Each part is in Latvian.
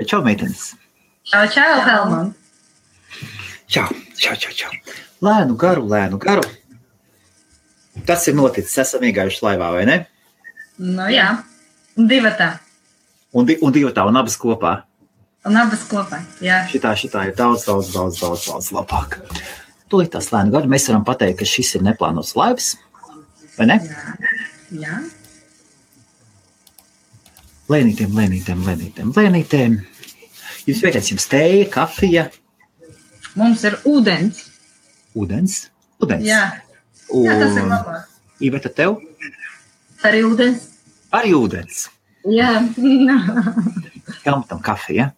čau, meitenes. Čau, Helman. Čau. Lēnu garu. Tas ir noticis, esam iegājuši laivā, vai ne? Nu jā, un divatā. Un divatā, un abas kopā. Jā. Šitā ir daudz labāk. Tūlīt tās lēnu garu mēs varam pateikt, ka šis ir neplānots laivs, vai ne? Jā. Lēnītēm. Jums vajadzēs jums tēja, kafija? Mums ir ūdens. Ūdens? Jā. Jā, tas ir labāk. Iveta, tev? Arī ūdens. Jā. Helmutam kafija.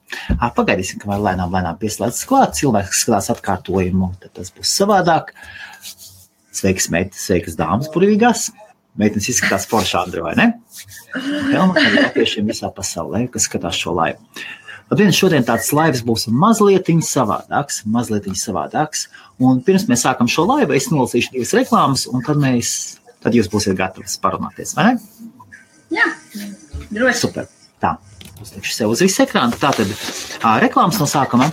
Pagaidīsim, kamēr lēnām pieslēdzas klāt. Cilvēks skatās atkārtojumu, tad tas būs savādāk. Sveikas meitas, sveikas dāmas burvīgās. Meitenes izskatās forši, Andri, vai ne? Helmutam ir latviešiem visā pasaulē, kas skatās šo laivu. Labdien, šodien tāds laivs būs mazlietiņ savādāks. Un pirms mēs sākam šo laivu, es nolasīšu 2 reklāmas, un tad jūs būsiet gatavi parunāties, vai ne? Jā, droši. Super. Tā, uzlikšu sev uz visu ekrānu. Tātad reklāmas no sākuma.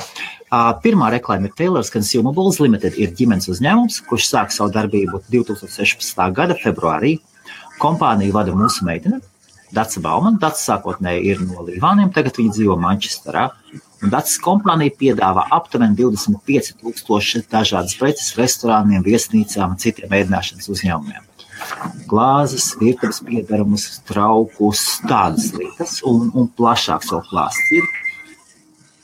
Pirmā reklāma ir Taylor's Consumables Limited, ir ģimenes uzņēmums, kurš sāk savu darbību 2016. gada februārī. Kompāniju vada mūsu meitene, Daca Bauman. Daca sākotnēji ir no Līvāniem, tagad viņa dzīvo Manchesterā. Un Dacas kompānija piedāvā aptuveni 25,000 dažādas preces restorāniem, viesnīcām un citiem ēdināšanas uzņēmumiem. Glāzes, virtuves piedarumus, traukus, tādas lietas un plašāks vēl klāsts ir.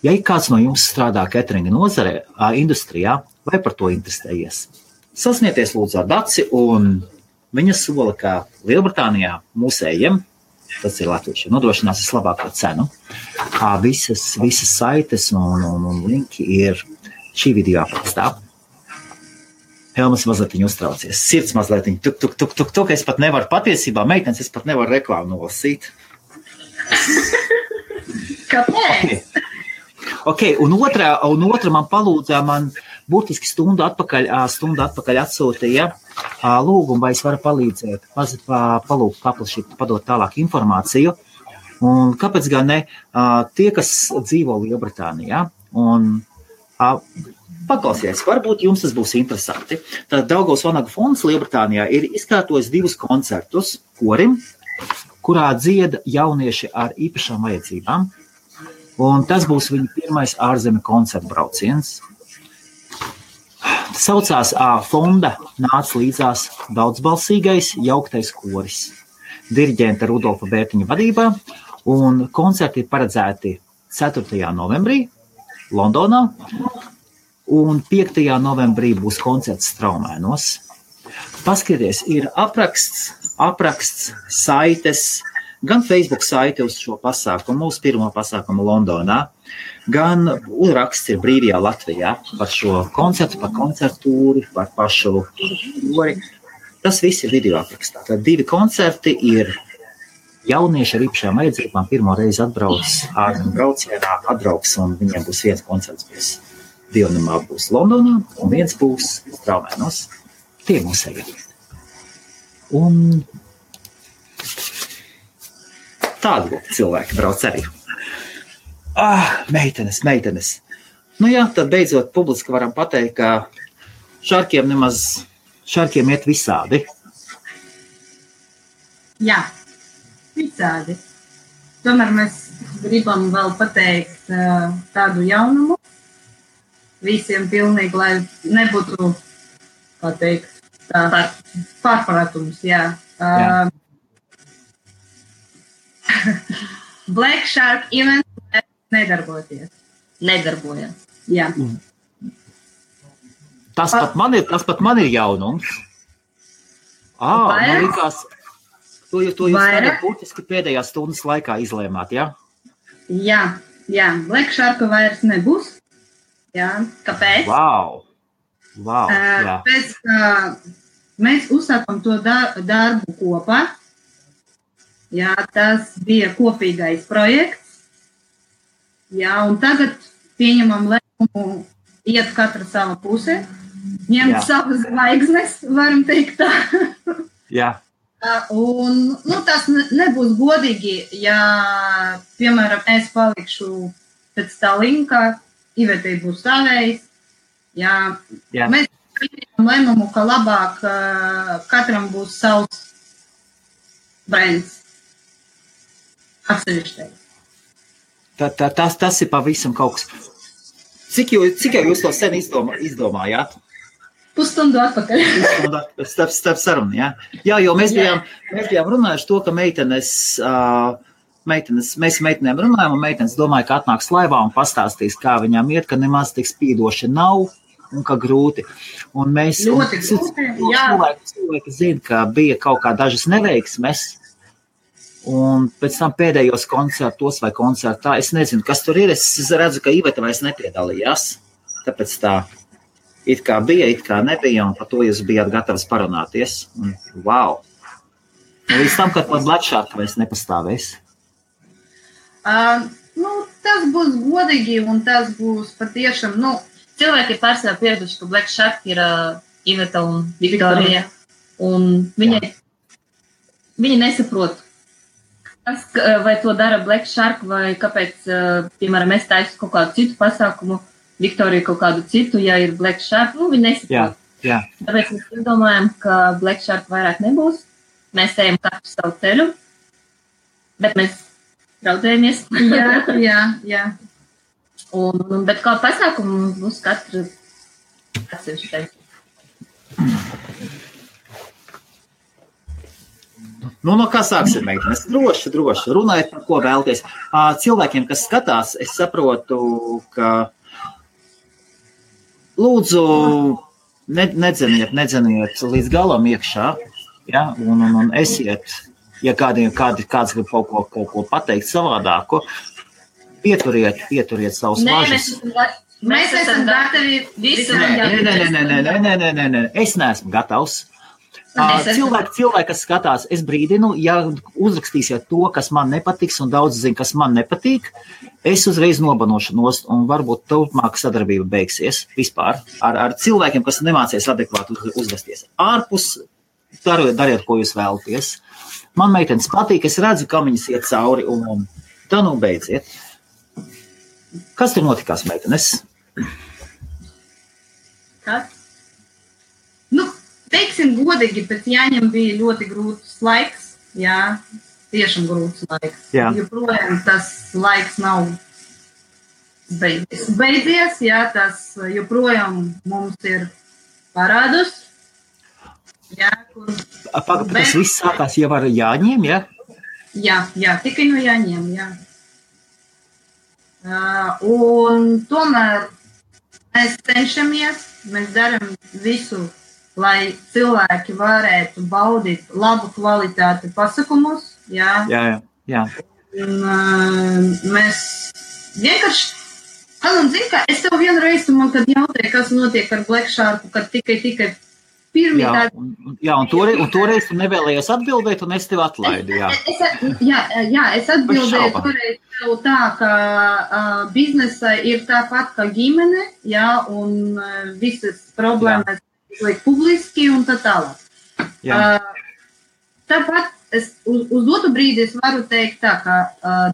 Ja kāds no jums strādā cateringa nozarē, industrijā, vai par to interesējies? Sasnieties lūdzu ar Daci, un viņa sola, ka Lielbritānijā mūsējiem, tas ir latviešiem, nodrošinās vislabāko cenu. Visas saites un linki ir šī video aprakstā. Helmas mazliet uztraucies, sirds mazliet tuk, es pat nevaru patiesībā, meitenes, es pat nevaru reklāmu nolasīt. Kāpēc? Okay, un otra man palūdza, man burtiski stundu atpakaļ atsūtīja lūgumu, vai es varu palīdzēt, palūgt paplašīt, padot tālāk informāciju. Un kāpēc gan ne? Tie, kas dzīvo Lielbritānijā, un paklausieties, varbūt jums tas būs interesanti. Tad Daugavas Vanagu fonds Lielbritānijā ir izkārtojis 2 koncertus korim, kurā dzieda jaunieši ar īpašām vajadzībām. Un tas būs viņa pirmais ārzemju koncertu brauciens. Tas saucās fonda nāca līdzās daudzbalsīgais jauktais koris. Diriģenta Rudolfa Bērtiņa vadībā, un koncerti ir paredzēti 4. novembrī Londonā, un 5. novembrī būs koncerts Straumēnos. Paskaties, ir apraksts, saites, gan Facebook saite uz šo pasākumu, mūsu pirmo pasākumu Londonā, gan raksts ir Brīvajā Latvijā par šo koncertu, par koncertūri, par pašu kori. Tas viss ir video aprakstā. Tad 2 koncerti ir jaunieši ar īpašām vajadzībām. Pirmo reizi ārzemju braucienā atbrauks, un viņiem būs 1 koncerts, 2 būs Londonā, un 1 būs Straumēnos. Tie mūsēji. Un tādi cilvēki brauc arī. Meitenes. Nu jā, tad beidzot publiski varam pateikt, ka šarkiem iet visādi. Jā, visādi. Tomēr mēs gribam vēl pateikt tādu jaunumu. Visiem pilnīgi, lai nebūtu, kā teikt, pārpratums, jā. Black Shark event nedarbojas. Jā. Tas pat man ir jaunums. Man likās, to jūs tagad būtiski pēdējās stundas laikā izlēmāt, jā? Jā, Black Shark vairs nebūs. Jā, kāpēc? Wow, jā. Pēc, mēs uzsākam to darbu kopā. Jā, tas bija kopīgais projekts. Jā, un tagad pieņemam lēmumu iet katra sava pusē, ņemt savas zvaigznes, varam teikt tā. Jā. Un tas nebūs godīgi, ja, piemēram, es palikšu pēc tā linka Ivetei būs savējs. Jā. Mēs pieņemam lēmumu, ka labāk katram būs savs brands. Atsevišķais. Tas ir pavisam kaut kas. Cik jau jūs to sen izdomājāt? Pusstundu atpakaļ. Starp sarunu, jā. Jā, jo mēs bijām runājuši to, ka mēs meitenēm runājam, un meitenes domāja, ka atnāks laivā un pastāstīs, kā viņām iet, ka nemaz tik spīdoši nav un ka grūti. Un mēs ļoti grūti, jā. Cilvēki zina, ka bija kaut kā dažas neveiksmes, un pēc tam pēdējos koncertos vai koncertā, es nezinu, kas tur ir, es redzu, ka Iveta vairs nepiedalījās, tāpēc tā it kā bija, it kā nebija, un par to jūs bijāt gatavs parunāties. Un, wow! Un līdz tam, kad pat Black Shark vairs nepastāvēs. Tas būs godīgi, un tas būs patiešām, cilvēki ir pārsvarā pieraduši, ka Black Shark ir Iveta un Viktorija, un viņi nesaprot, vai to dara Black Shark, vai kāpēc, piemēram, es taisu kaut kādu citu pasākumu, Viktorija kaut kādu citu, ja ir Black Shark, viņi nesaprot. Jā. Tāpēc mēs domājam, ka Black Shark vairāk nebūs. Mēs ejam katru savu ceļu, bet mēs draudzējamies. Jā. Bet kā pasākumu būs katra atsevišķais. No kā sāksim, meitenes? Droši. Runājiet, par ko vēlties. Cilvēkiem, kas skatās, es saprotu, ka lūdzu, nedzeniet līdz galam iekšā, ja? Un esiet, ja kāds grib kaut ko pateikt savādāko, pieturiet savus važas. Mēs esam gatavi visu. Nē, es neesmu gatavs. Cilvēki, kas skatās, es brīdinu, ja uzrakstīsiet to, kas man nepatiks, un daudz zina, kas man nepatīk, es uzreiz nobanošu nost, un varbūt turpmāk sadarbība beigsies vispār ar cilvēkiem, kas nemācies adekvāti uzvesties. Ārpus dariet, ko jūs vēlaties. Man meitenes patīk, es redzu, ka viņas iet cauri, un tā beidziet. Kas tur notikās, meitenes? Kas? Teiksim godīgi, bet jāņem bija ļoti grūts laiks, jā, tiešām grūts laiks. Jā. Joprojām tas laiks nav beidzies, jā, tas joprojām mums ir parādus. Jā, Tas viss sākās jau ar Jāņiem, jā? Jā, tikai no Jāņiem, jā. Un tomēr mēs cenšamies, mēs darām visu, lai cilvēki varētu baudīt labu kvalitāti pasākumus. Jā. Un, mēs vienkārši, zinu, ka es tev vienreiz, man kad jautāju, kas notiek ar Black Sharku, kad tikai pirmie tādi. Jā, un toreiz tu nevēlējies atbildēt, un es tev atlaidu, jā. Es atbildēju toreiz tev tā, ka biznesa ir tāpat kā ģimene, jā, un visas problēmas liek publiski un tā tālāk. Tāpat es uz otru brīdi es varu teikt tā, ka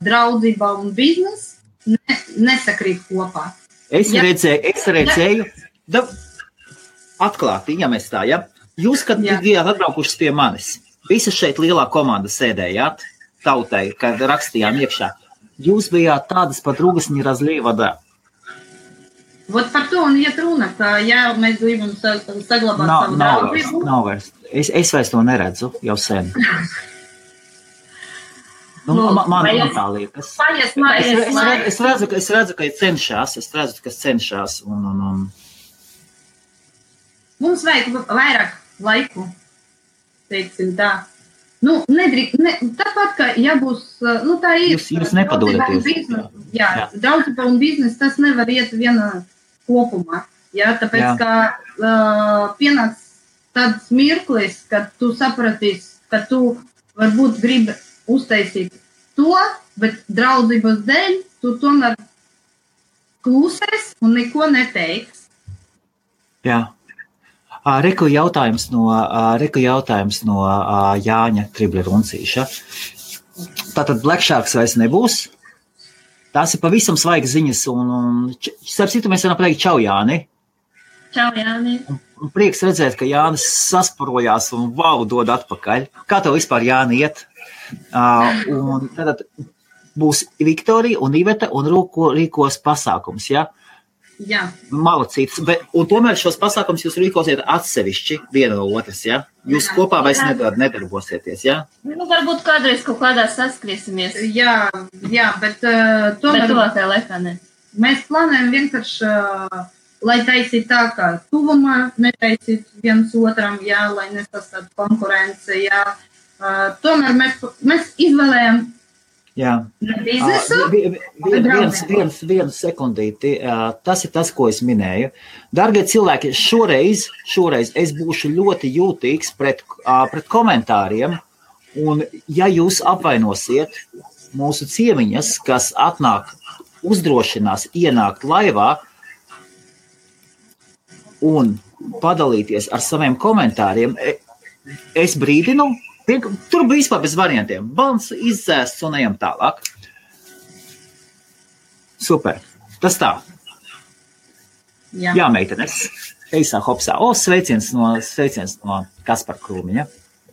draudzība un biznes nesakrīt kopā. Es redzēju, atklāti, ja mēs tā, ja? Jūs, kad bijāt atbraukušas pie manis, visas šeit lielā komanda sēdējāt, tautai, kad rakstījām iekšā, jūs bijāt tādas pat rūgasņi razlīvadā. Vot par to un iet runa, ka jā, mēs gribam saglabāt savu draudzību. Nav vairs. Es vairs to neredzu jau sen. Man tā liekas. Es redzu, ka cenšas. Mums vajag vairāk laiku, teiksim tā. Tāpat, ka jābūs, tā ir. Jūs nepadodaties. Jā, draudzība un biznes, tas nevar iet viena kopumā. Jā, tāpēc, ka pienāks tāds mirklis, kad tu sapratīs, ka tu varbūt gribi uztaisīt to, bet draudzības dēļ tu tomēr klusēs un neko neteiks. Jā. Reku jautājums no Jāņa Tribleruncīša. Tātad Black Sharks vairs nebūs. tās ir pavisam svaigas ziņas, un starp citu mēs varam pateikt čau, Jāni. Čau, Jāni. Un prieks redzēt, ka Jānis sasparojās un dod atpakaļ. Kā tev vispār, Jāni, iet? Un tad būs Viktorija un Iveta un rīkos pasākums, ja? Jā. Malacīts, un tomēr šos pasākums jūs rīkosiet atsevišķi viena no otras, ja? Jūs kopā vairs nedarbosieties, ja? Varbūt kādreiz kaut kādā saskriesimies. Jā, bet tomēr... Bet tuvākajā laikā ne. Mēs plānojam vienkārši, lai taisīt tā, kā tuvumā, netaisīt viens otram, jā, lai nesastātu konkurence, jā. Tomēr mēs izvēlējam biznesu. Vienu sekundīti. Tas ir tas, ko es minēju. Dargie cilvēki, šoreiz es būšu ļoti jūtīgs pret komentāriem, un ja jūs apvainosiet mūsu ciemiņas, kas atnāk, uzdrošinās ienākt laivā un padalīties ar saviem komentāriem, es brīdinu, tur bija vispār bez variantiem. Balns izdzēsts un ejam tālāk. Super. Tas tā. Jā, meitenes. Eisā, hopsā. Sveiciens no Kaspar Krūmiņa.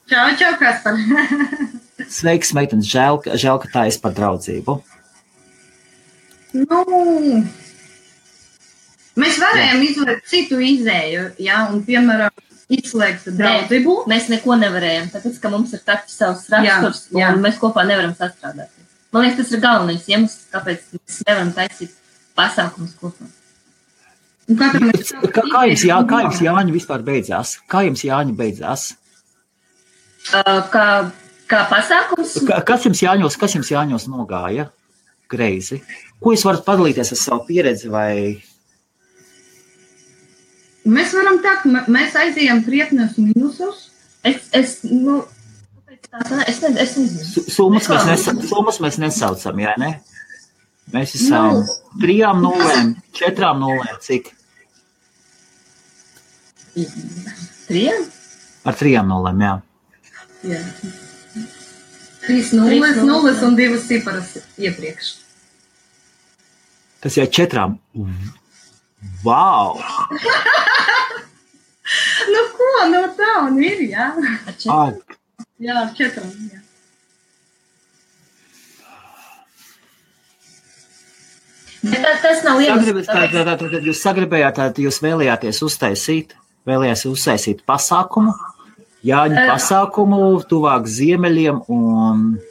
Čau, Kaspar. Sveiks, meitenes. Žēl, ka tā es par draudzību. Mēs varējām izvēlēt citu izēju, jā, un piemēram, izslēgt draudzību. Mēs neko nevarējām, tāpēc, ka mums ir takti savs raksturs, un mēs kopā nevaram sastrādāt. Man liekas, tas ir galvenais iemesls, kāpēc mēs nevaram taisīt pasākumus kopā. Kā jums Jāņi vispār beidzās? Kā jums Jāņi beidzās? Kā pasākums? Kas jums Jāņos nogāja greizi? Ko jūs varat padalīties ar savu pieredzi vai... Mēs varam tā, mēs aizējām krietnes minusus. Es nezinu. Summas mēs nesaucam, jā, ne? Mēs esam 3-0, 4-0, cik? 3? Ar 3-0, jā. 3-0 un 2 ciparas iepriekš. Tas jau 4. Wow! Tā un ir, jā. Jā, 4. Jā. Tas nav iemesls. Tad jūs sagribējāt, jūs vēlējāties uztaisīt pasākumu, Jāņu pasākumu, tuvāk ziemeļiem un...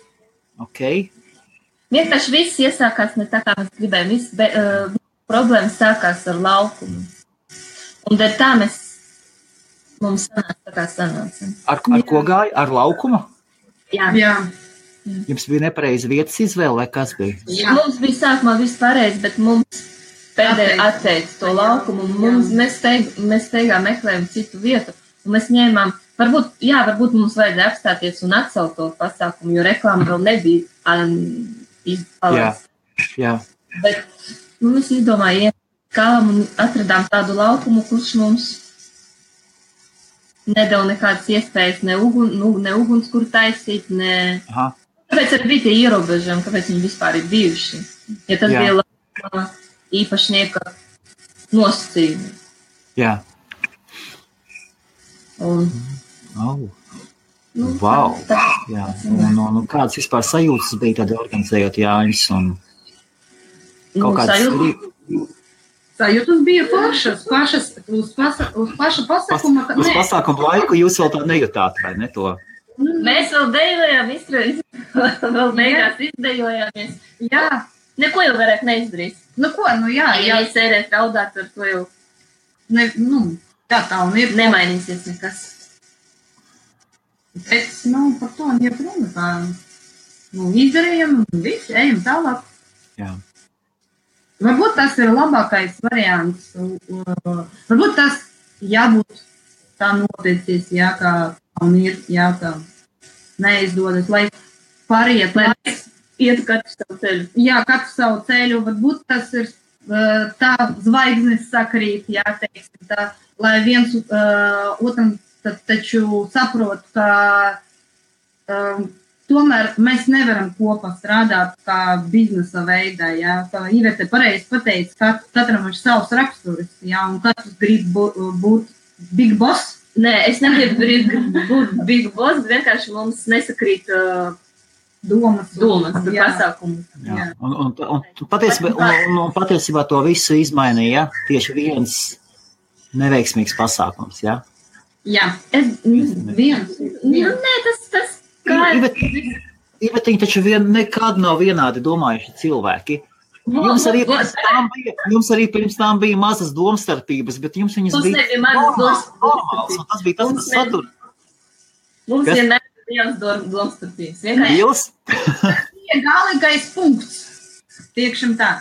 Vienkārši viss iesākās ne tā, kā mēs gribējām. Problēma sākās ar laukumu. Un dēļ tā mums sanāca. Ar ko gāja? Ar laukumu? Jā. Jums bija nepareiza vietas izvēle, vai kas bija? Jā. Mums bija sākumā viss pareizi, bet mums pēdējā atteica to laukumu. Mēs steigā meklējām citu vietu. Un mēs ņēmām, varbūt mums vajadzēja apstāties un atcelt to pasākumu, jo reklāma vēl nebija izpalēs. Jā. Bet mēs izdomājām, kālam un atradām tādu laukumu, kurš mums nedeva nekādas iespējas, ne uguns, kur taisīt, ne... Kāpēc arī bija tie ierobežojumi, kāpēc viņi vispār ir bijuši? Ja tas bija laukuma īpašnieka nosacījumi. Jā. Wow. Jā. Un kādas vispār sajūtas bija tad organizējot Jāņus un... Sajūtas bija uz paša pasākuma. Uz pasākuma laiku jūs vēl tā nejūtāt, vai ne to? Mēs vēl dejojām, vēl beigās izdejojāmies. Jā. Neko jau vairāk neizdarīs. Jā. Ja sērēt raudāt, ar to jau... Tā un ir. Nemainīsies nekas. Bet, par to un iepruna. Izdarījām un viss, ejam tālāk. Jā. Varbūt tas ir labākais variants. Varbūt tas jābūt tā noticis, kā un ir, kā neizdodas, lai pāriet, lai iet katru savu ceļu. Jā, katru savu ceļu. Varbūt tas ir tā zvaigznes sakrīt, teiksim, tā, lai viens otram taču saprot, ka tomēr mēs nevaram kopā strādāt kā biznesa veidā, jā, kā Ivete pareizi pateica, katram ir savs raksturs, jā, un katrs grib būt big boss. Nē, es negribu būt big boss, vienkārši mums nesakrīt domas pasākumus. Jā. Un patiesībā to visu izmainīja tieši viens neveiksmīgs pasākums, jā? Jā, viens. Nē, tas kā... Ivetiņi taču nekad nav vienādi domājuši cilvēki. Jums arī pirms tām bija mazas domstarpības, bet jums viņas bija normāls, un tas bija tas, kas satur. Mums vienmēr Liels domstarpības. Liels? Bija galīgais punkts. Tiekšam tā.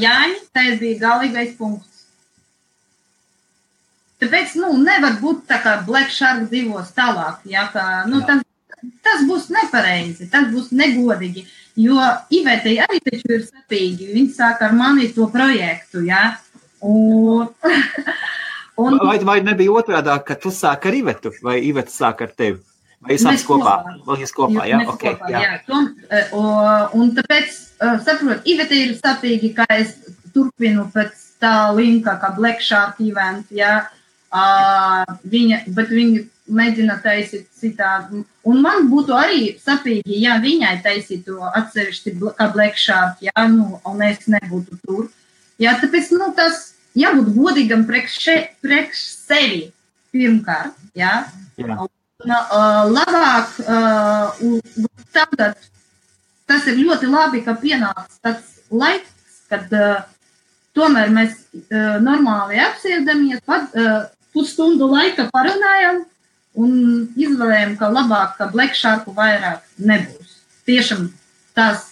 Jāņi, tas bija galīgais punkts. Tāpēc, nevar būt tā kā Black Shark dzīvos tālāk. Jā, kā, tas būs nepareizi, tas būs negodīgi. Jo Ivetei arī taču ir sapīgi. Viņi sāk ar mani to projektu, jā. Vai nebija otrādāk, ka tu sāk ar Ivetu, vai Iveta sāk ar tevi? Vai jūs sāks kopā? Vai jūs kopā, jā? Okay, kopā, jā. Un tāpēc, saprot, Iveta ir sapīgi, ka es turpinu pēc tā linka, kā Black Shark event, jā. Bet viņa mēģina taisīt citādi. Un man būtu arī sapīgi, ja viņai taisītu atsevišķi kā Black Shark, jā, un es nebūtu tur. Jā, tāpēc, tas jābūt godīgam priekš sevi pirmkārt, jā. Labāk, tagad tas ir ļoti labi, ka pienāks tāds laiks, kad tomēr mēs normāli apsēdamies, pusstundu laika parunājam un izvēlējam, ka labāk, ka Black Sharku vairāk nebūs. Tiešām tās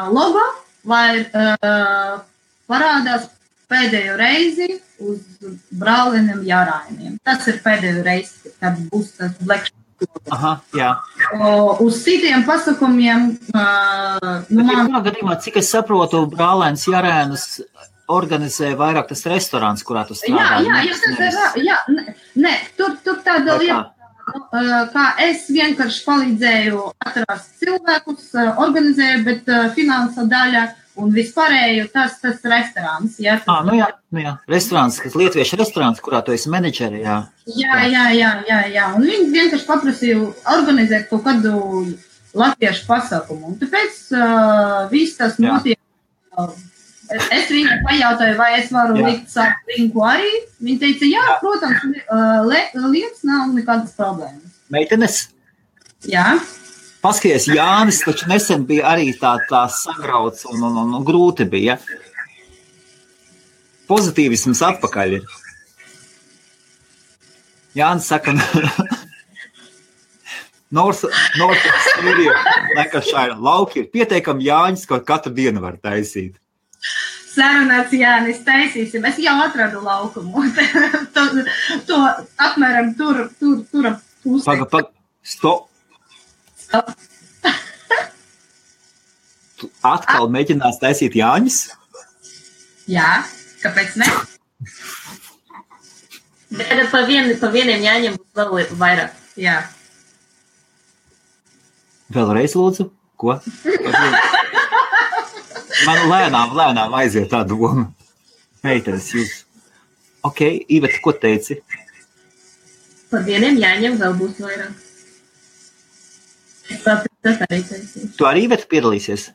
logo vai parādās pēdējo reizi uz brāliniem jārājumiem. Tas ir pēdējo reizi, kad būs tas Black Shark. Aha, jā. Uz citiem pasākumiem... gadījumā, cik es saprotu, brālēns jārēnus organizē vairāk tas restorāns, kurā tu strādā. Nē, tur tāda lieta, kā es vienkārši palīdzēju atrast cilvēkus, organizēju, bet finansa daļa un vispārēju tas restorāns. Jā, jā. Restorāns, kas lietuviešu restorāns, kurā tu esi menedžeri, jā. Jā. Un viņi vienkārši paprasīju organizēt kaut kādu latviešu pasākumu. Un tāpēc viss tas notiek. Es viņai pajautāju, vai es varu likt savu linku arī. Viņa teica, jā, protams, lietas nav nekādas problēmas. Meitenes? Jā. Paskaties, Jānis taču nesen bija arī tā sagrauts un grūti bija. Pozitīvisms atpakaļ ir. Jānis saka, North Australia, Lancashire lauki ir pieteikami Jāņus, ko katru dienu var taisīt. Sarunāts Jānis, taisīsim. Es jau atradu laukumu. To apmēram tur pusē. Stop. Tu atkal mēģinās taisīt Jāņus? Jā, kāpēc ne? Bet pa vieniem Jāņiem būs vēl vairāk. Jā. Vēlreiz lūdzu? Ko? Man lēnām aiziet tā doma. Meitenes, jūs. Ok, Iveta, ko teici? Pa vieniem Jāņiem vēl būs vairāk. Tas arī taisīs. Tu arī Iveta piedalīsies?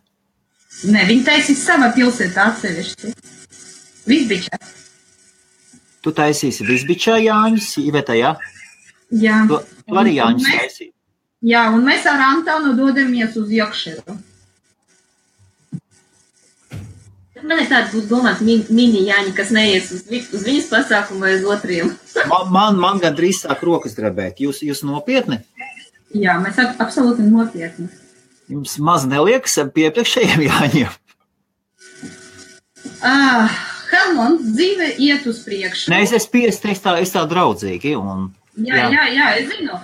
Nē, viņi taisīs savā pilsētā atsevišķi. Visbičā. Tu taisīsi Visbičā Jāņus, Iveta, jā? Jā. Tu arī Jāņus taisīsi. Jā, un mēs ar Antonu dodamies uz Jokšeru. Man ir tāds būs domāts mini Jāņi, kas neies uz viņas pasākumu vai uz otriem. Man gandrīz sāk rokas drebēt. Jūs nopietni? Jā, mēs absolūti nopietni. Jums maz neliekas pie priekšējiem Jāņiem? Helmont, dzīve iet uz priekšu. Nē, es tā draudzīgi. Jā, es zinu.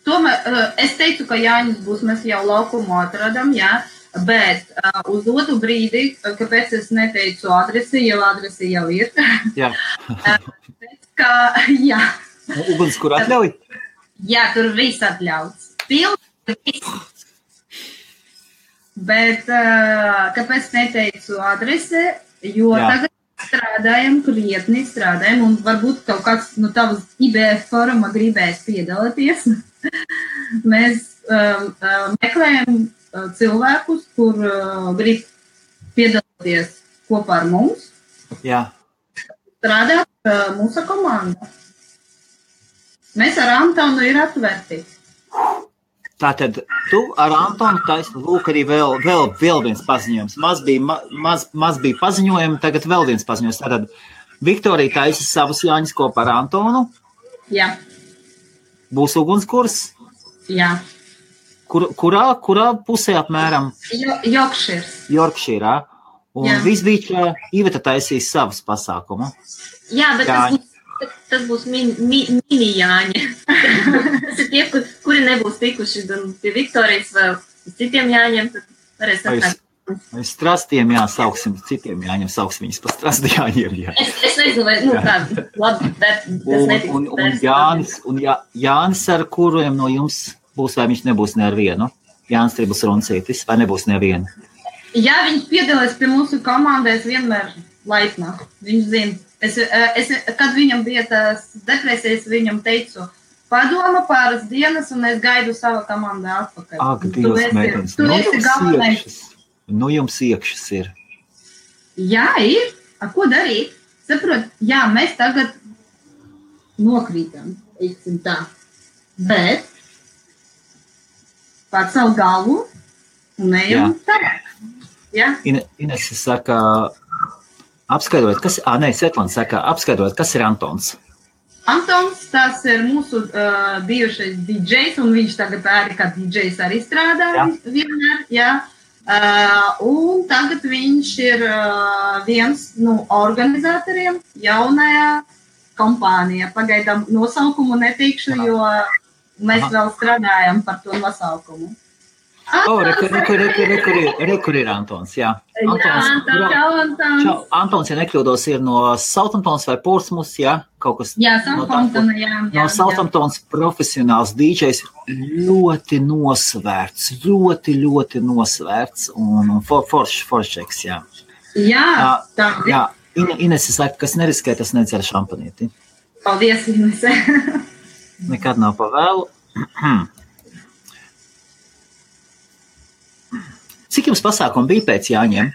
Tomēr es teicu, ka Jāņus būs, mēs jau laukumu atradam, jā. Bet uz otru brīdi, kāpēc es neteicu adresi, jo adresi jau ir. Jā. Jā. Uguns, kur atļauj? Jā, tur viss atļauts. Bet kāpēc neteicu adrese? Jo tagad krietni strādājam, un varbūt kaut kāds no tavas IBF foruma gribēs piedalīties. Mēs meklējam cilvēkus, kur grib piedalīties kopā ar mums. Jā. Strādāt mūsu komanda. Mēs ar Antonu ir atverti. Tātad tu ar Antonu taisni, lūk, arī vēl viens paziņojums. Maz bija paziņojumi, tagad vēl viens paziņojums. Tātad Viktorija taisa savus Jāņus kopā ar Antonu. Jā. Būs ugunskurs. Jā. Kurā pusē apmēram? Yorkshire. Un visbīčā Iveta taisīs savus pasākumu. Jā, bet tas būs mini Jāņi. Tas ir tie, kuri nebūs tikuši gan pie Viktorijas vēl citiem Jāņiem, tad varēs atnākt. Vai strastiem sauksim, citiem Jāņiem sauks viņus pa strasti Jāņiem. Jā. Es nezinu, vai, tā, labi, bet tas netiks. Un Jānis, ar kuriem no jums būs, vai viņš nebūs ne ar vienu? Jānis Tribus Runcītis, vai nebūs nevienu? Jā, viņš piedalās pie mūsu komandās vienmēr laipnā. Viņš zina. Kad viņam bija tās depresijas, viņam teicu, padoma pāris dienas, un es gaidu savu komandu atpakaļ. Ak, Dievs, meitenes, nu jums iekšas ir. Jā, ir. Ko darīt? Saprot, jā, mēs tagad nokrītam, teiksim tā. Bet pār savu galvu un ejam tā. Jā. Inese saka, apskaidrot, Svetlana saka, apskaidrot, kas ir Antons? Antons, tas ir mūsu bijušais DJs, un viņš tagad arī kā DJs arī strādā vienmēr, jā. Un tagad viņš ir viens no organizatoriem jaunajā kompānijā. Pagaidām nosaukumu neteikšu, jo mēs vēl strādājam par to nosaukumu. Rekur ir Antons, jā. Antons, ja nekļūdos, ir no Southamptons vai Portsmouths, jā? Kaut kas. Jā, Southamptona, jā. No Southamptons profesionāls DJs, ļoti nosvērts un foršeks, jā. Jā, tā. Jā, Inese saka, kas neriskē, tas nedzer šampanīti. Paldies, Inese. Nekad nav pavēlu. Cik jums pasākumu bija pēc Jāņiem?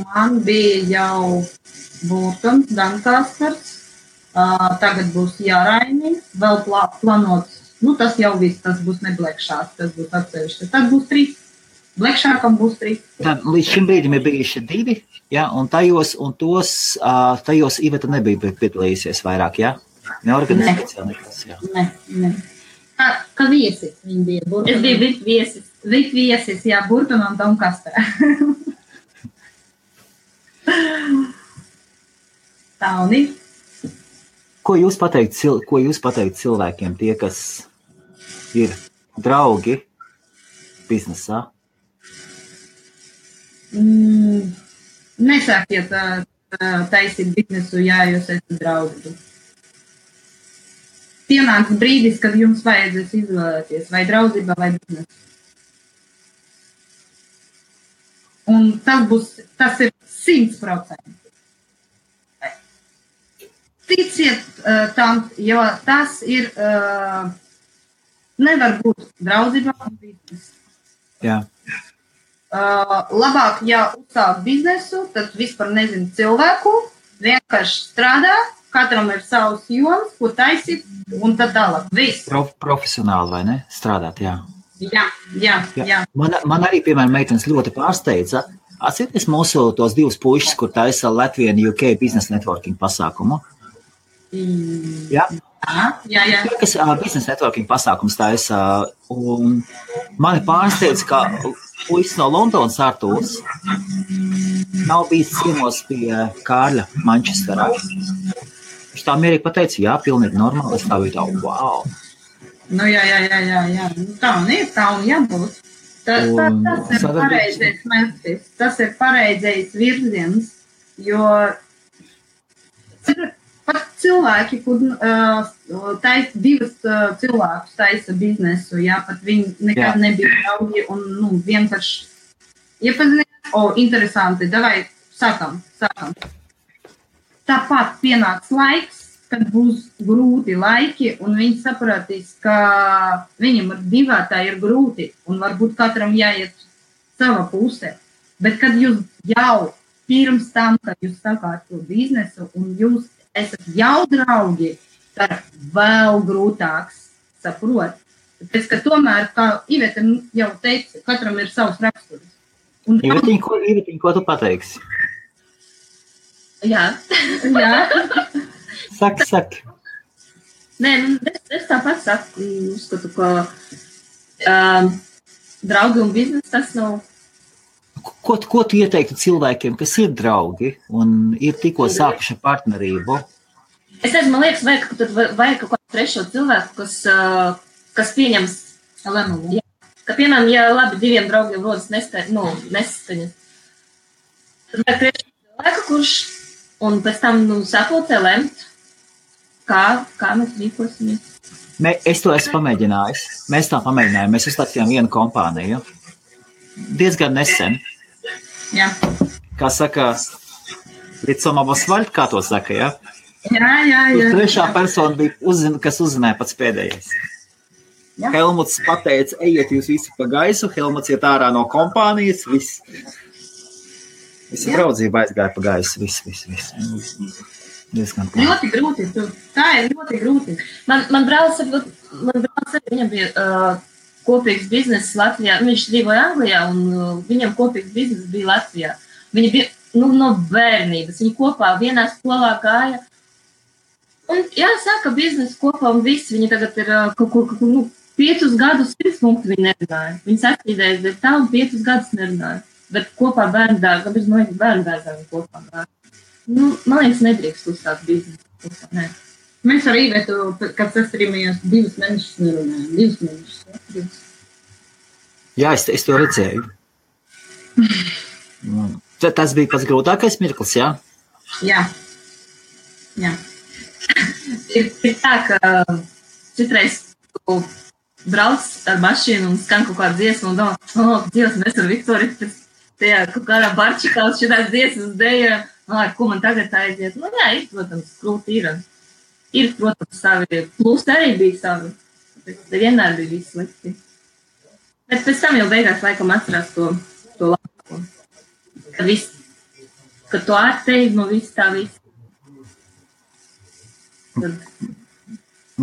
Man bija jau Burtons, Dankāskars, tagad būs Jāraini, vēl planots, tas jau viss, tas būs ne Blekšāks, tas būs atsevišķi. Tad būs 3, Blekšākam būs 3. Tad līdz šim brīdim ir bijuši 2, jā, un tajos Iveta nebija piedalījusies vairāk, jā? Neorganizācijā nekas, jā. Ne. Kā viesis viņi bija Burtons. Es biju VIP viesis. VIP viesis, jā, Burton un Doncaster. Tā un ir. Ko jūs pateikt cilvēkiem, tie, kas ir draugi biznesā? Nesākiet taisīt biznesu, ja jūs esat draugi. Pienāks brīdis, kad jums vajadzēs izvēlēties vai draudzība vai biznesu. Un tas ir 100%. Ticiet tam, jo tas ir, nevar būt draudzība un biznesu. Jā. Labāk, ja uzsāk biznesu, tad vispār nezinu cilvēku, vienkārši strādā, katram ir savs joms, ko taisīt, un tad tālāk. Viss. Profesionāli, vai ne? Strādāt, jā. Jā. Man arī, piemēram, meitenes ļoti pārsteidza. Atcerieties mūsu tos 2 puišus, kur taisa Latvian UK Business Networking pasākumu. Jā. Jā. Kas Business Networking pasākums taisa, un mani pārsteidza, ka puisis no Londonas Artūrs nav bijis ciemos pie Kārļa Manchesterā. Viņš tā mierīgi pateica, jā, pilnīgi normāli, es tā biju tā, wow. Jā. Tā un jābūt. Tas ir pareizais mērķis, tas ir pareizais virziens, jo pat cilvēki, kur divas cilvēkus taisa biznesu, jā, pat viņi nekad nebija draugi un vienkārši iepazināt, interesanti, davai, sākam. Tāpat pienāks laiks, kad būs grūti laiki, un viņi sapratīs, ka viņam ar divētā ir grūti, un varbūt katram jāiet sava pusē. Bet kad jūs jau pirms tam, kad jūs sākāt to biznesu, un jūs esat jau draugi, tad vēl grūtāks saprot. Tāpēc, ka tomēr, kā Iveta jau teica, katram ir savs raksturs. Ivetiņ, ko tu pateiksi? Jā. Saki. Nē, es tāpat saku, uzskatu, ka draugi un biznes tas nav. Ko tu ieteiktu cilvēkiem, kas ir draugi un ir tikko sākuši partnerību? Es nezinu, man liekas, vajag kaut kādu trešo cilvēku, kas pieņems lēmumu. Ka, piemēram, ja labi diviem draugiem rodas nesaskaņas, tad vajag trešo cilvēku, kurš un pēc tam sapulcē lemt, kā mēs rīkosimies. Es to esmu pamēģinājis. Mēs tā pamēģinājām. Mēs uzstāstījām vienu kompāniju. Diezgan nesen. Jā. Kā saka, Ritsomabas vaļt, kā to saka, ja? Jā. Trešā persona bija, kas uzzināja pats pēdējais. Jā. Helmuts pateica, ejiet jūs visi pa gaisu, Helmuts iet ārā no kompānijas, viss. Visa draudzība aizgāja pa gaisu, viss. Ļoti grūti. Tā ir ļoti grūti. Man brālis, viņam bija kopīgs bizness Latvijā. Viņš dzīvoja Anglijā un viņam kopīgs bizness bija Latvijā. Viņi bija no bērnības. Viņi kopā vienā skolā gāja. Un jāsaka, biznesa kopā un visi. Viņi tagad ir kaut kur 5 gadus 100 punktu viņi nerunāja. Viņi sastrīdējas, bet tā un 5 gadus nerunāja. Bet kopā bērndārs, kāpēc man liekas bērndārs viņi kopā gāja. Man liekas, nedrīkst uzstāt biznesu. Nē. Mēs ar Īvetu, kad sastrīmējās 2 mēnešus nerunājām. 2 mēnešus. Jā, es to redzēju. Tas bija pats grūtākais mirklis, jā? Jā. Ir tā, ka citreiz tu brauc ar mašīnu un skan kaut kāda dziesma un domā, Dievs, mēs ar Viktoriju tajā kaut kādā barčikā uz šitās dziesmas dējām. Ko man tagad aiziet? Jā, ir, protams, grūti ir. Ir, protams, savi plusi arī bija savi. Vienmēr bija viss slikti. Bet pēc tam jau beigās laikam atcerās to labāko. Kad to atteid no viss tā viss.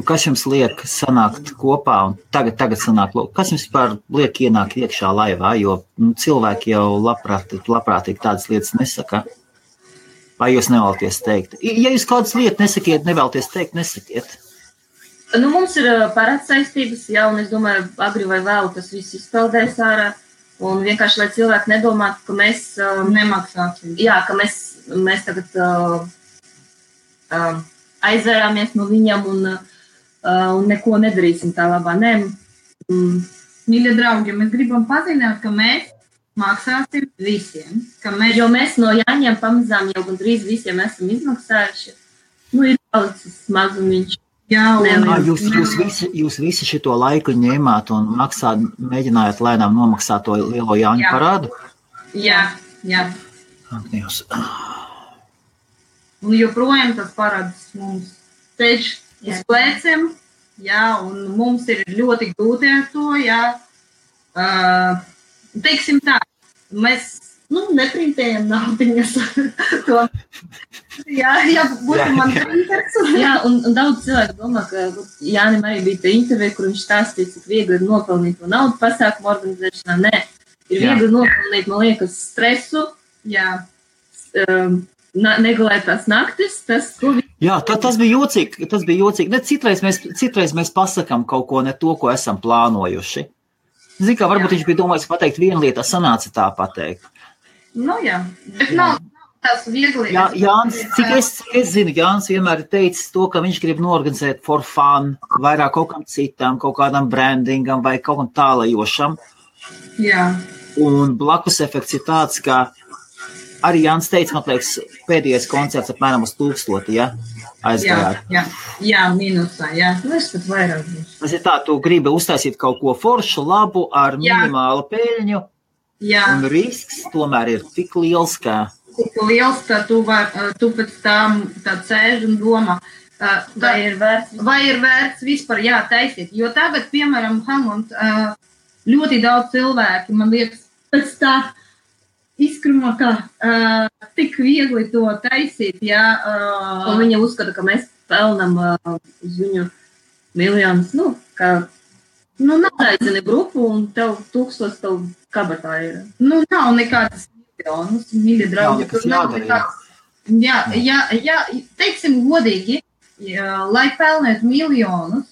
Kas jums liek sanākt kopā un tagad sanāk, kas jums par liek ienākt iekšā laivā, jo cilvēki jau labprātīgi tādas lietas nesaka? Vai jūs nevēlaties teikt? Ja jūs kādas lietas nesakiet, nevēlaties teikt, nesakiet. Mums ir parāds saistības, un es domāju, agri vai vēl tas viss izpeldēs ārā. Un vienkārši, lai cilvēki nedomātu, ka mēs nemaksāsim. Jā, ka mēs tagad aizvērāmies no viņam un neko nedarīsim tā labā. Nē. Mīļie draugi, mēs gribam paziņot, ka mēs maksāsim visiem. Jo mēs no Jāņiem pamazām jau gandrīz visiem esam izmaksājuši. Ir palicis mazumiņš. Jūs visi šito laiku ņēmāt un mēģinājāt lēnām nomaksāt to lielo Jāņu parādu? Jā. Un joprojām tas parāds mums ceļš uz pleciem, un mums ir ļoti grūti ar to, teiksim tā, mēs neprintējam naudiņas. Jā, būtu man printers. Jā, un daudz cilvēku domā, ka Jānim arī bija tā intervija, kur viņš stāstīja, cik viegli ir nopelnīt to naudu pasākumu organizēšanā. Nē, ir viegli nopelnīt, man liekas, stresu, negulētās naktis, tas bija jocīgi. Citreiz mēs pasakām kaut ko ne to, ko esam plānojuši. Zini, kā varbūt viņš bija domājis pateikt vienu lietu, sanāca tā pateikt. Bet nav tās viegli. Jānis, cik es zinu, Jānis vienmēr ir teicis to, ka viņš grib norganizēt for fun, vairāk kaut kam citam, kaut kādam brandingam vai kaut kam tālajošam. Jā. Un blakus efekts ir tāds, ka arī Jānis teica, man liekas, pēdējais koncerts apmēram uz 1000, ja? aizgājāt. Jā, mīnusā, jā. Es pat vairāk būšu. Tas ir tā, tu gribi uztaisīt kaut ko foršu, labu, ar minimālu peļņu, un risks tomēr ir tik liels, ka tu pēc tam tā sēž un domā, vai ir vērts vispār taisīt. Jo tagad, piemēram, Helmut, ļoti daudz cilvēki, man liekas, pēc tā izkrumā, ka tik viegli to taisīt, Un viņa uzskata, ka mēs pelnam uz viņu miljonus, ka aizini grupu un tev 1000 tev kabatā ir. Nav nekādas miljonus, mīļi draugi. Jā, teiksim godīgi, lai pelnētu miljonus,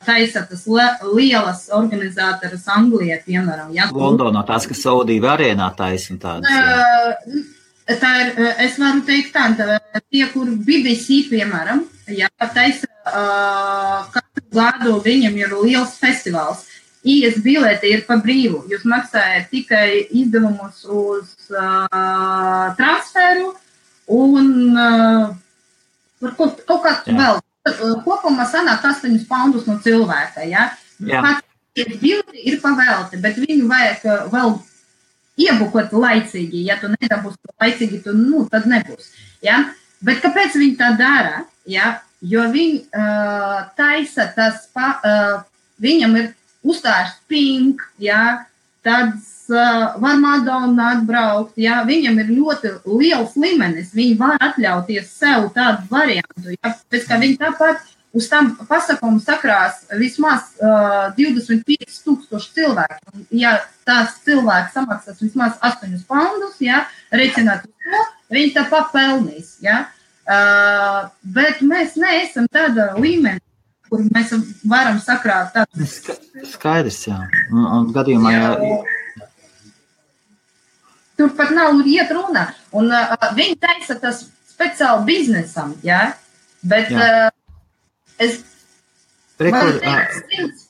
taisa tas lielas organizātoras Anglijā, piemēram. Londonā tās, kas Saudīva arēnā taisa un tādas. Tā ir, es varu teikt tā, tie, kur BBC, piemēram, taisa katru gadu viņam ir liels festivāls. IS bileti ir pa brīvu. Jūs maksājat tikai izdevumus uz transferu un kaut kā vēl. Kopumā sanāk 8 poundus no cilvēka, Pats bileti ir pavēlti, bet viņu vajag vēl iebukot laicīgi. Ja tu nedabūsi laicīgi, tad nebūs. Bet kāpēc viņi tā dara? Jo viņi taisa viņam ir uzstāžs pink, tāds var Madonna atbraukt, viņam ir ļoti liels līmenis, viņi var atļauties sev tādu variantu, pēc kā viņi tāpat uz tam pasakumu sakrās vismaz 25,000 cilvēku. Ja tās cilvēks samaksās vismaz 8 poundus, reiķināt uz to, viņi tāpat pelnīs, bet mēs neesam tāda līmeni, kur mēs varam sakrāt tādu. Skaidrs, un gadījumā, Tur pat nav iet runa. Un viņi taisa tas speciāli biznesam, bet es varu teikt,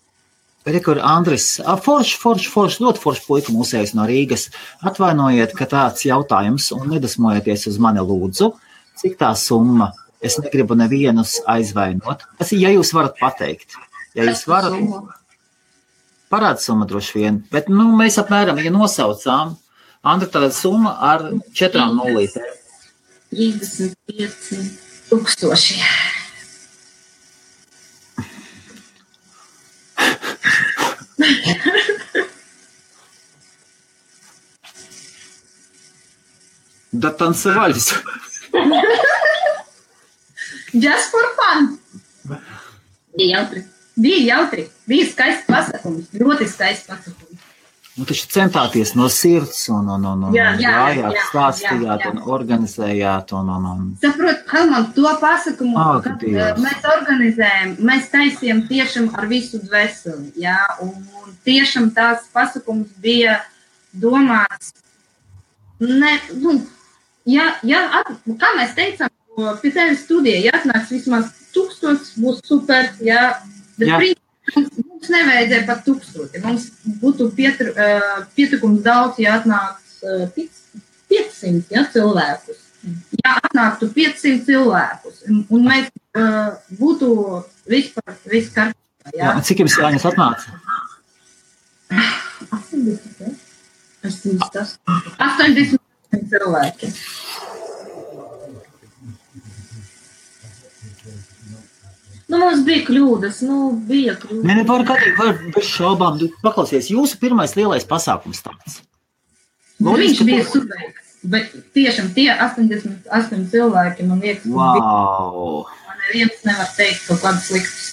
Rekur, Andris, forši, ļoti forši puika mūsējs no Rīgas. Atvainojiet, ka tāds jautājums un nedasmojieties uz mani lūdzu. Cik tā summa? Es negribu nevienus aizvainot. Tas ir, ja jūs varat pateikt. Ja jūs varat, parāda summa droši vien. Bet, mēs apmēram, ja nosaucām, Andra, tāda summa ar 4 nulītēm. 35,000. Да танцевались. Just for fun. Bija jautri. Bija skaists pasakums. Ļoti skaists pasakums. Taču centāties no sirds un gājāt, stāstījāt un organizējāt. Saprot, Helmut, to pasakumu, kad mēs organizējam, mēs taisījām tiešām ar visu dvēseli, un tiešām tās pasakums bija domāts, kā mēs teicām, pie tevis studija, atnāks vismaz 1000, būs super, bet mums nevajadzēja pat 1000. Mums būtu pietikums daudz, ja atnāks 500 cilvēkus. Ja atnāktu 500 cilvēkus, un mēs būtu vispār viss kārtībā. Cik jums jāņas atnāca? 80 cilvēki. Mums bija kļūdas, Nē, var bez šaubām. Paklausies, jūsu pirmais lielais pasākums tāds. Viņš bija super, bet tiešām tie 88 cilvēki, man liekas, man neviens nevar teikt kaut kādas sliktas.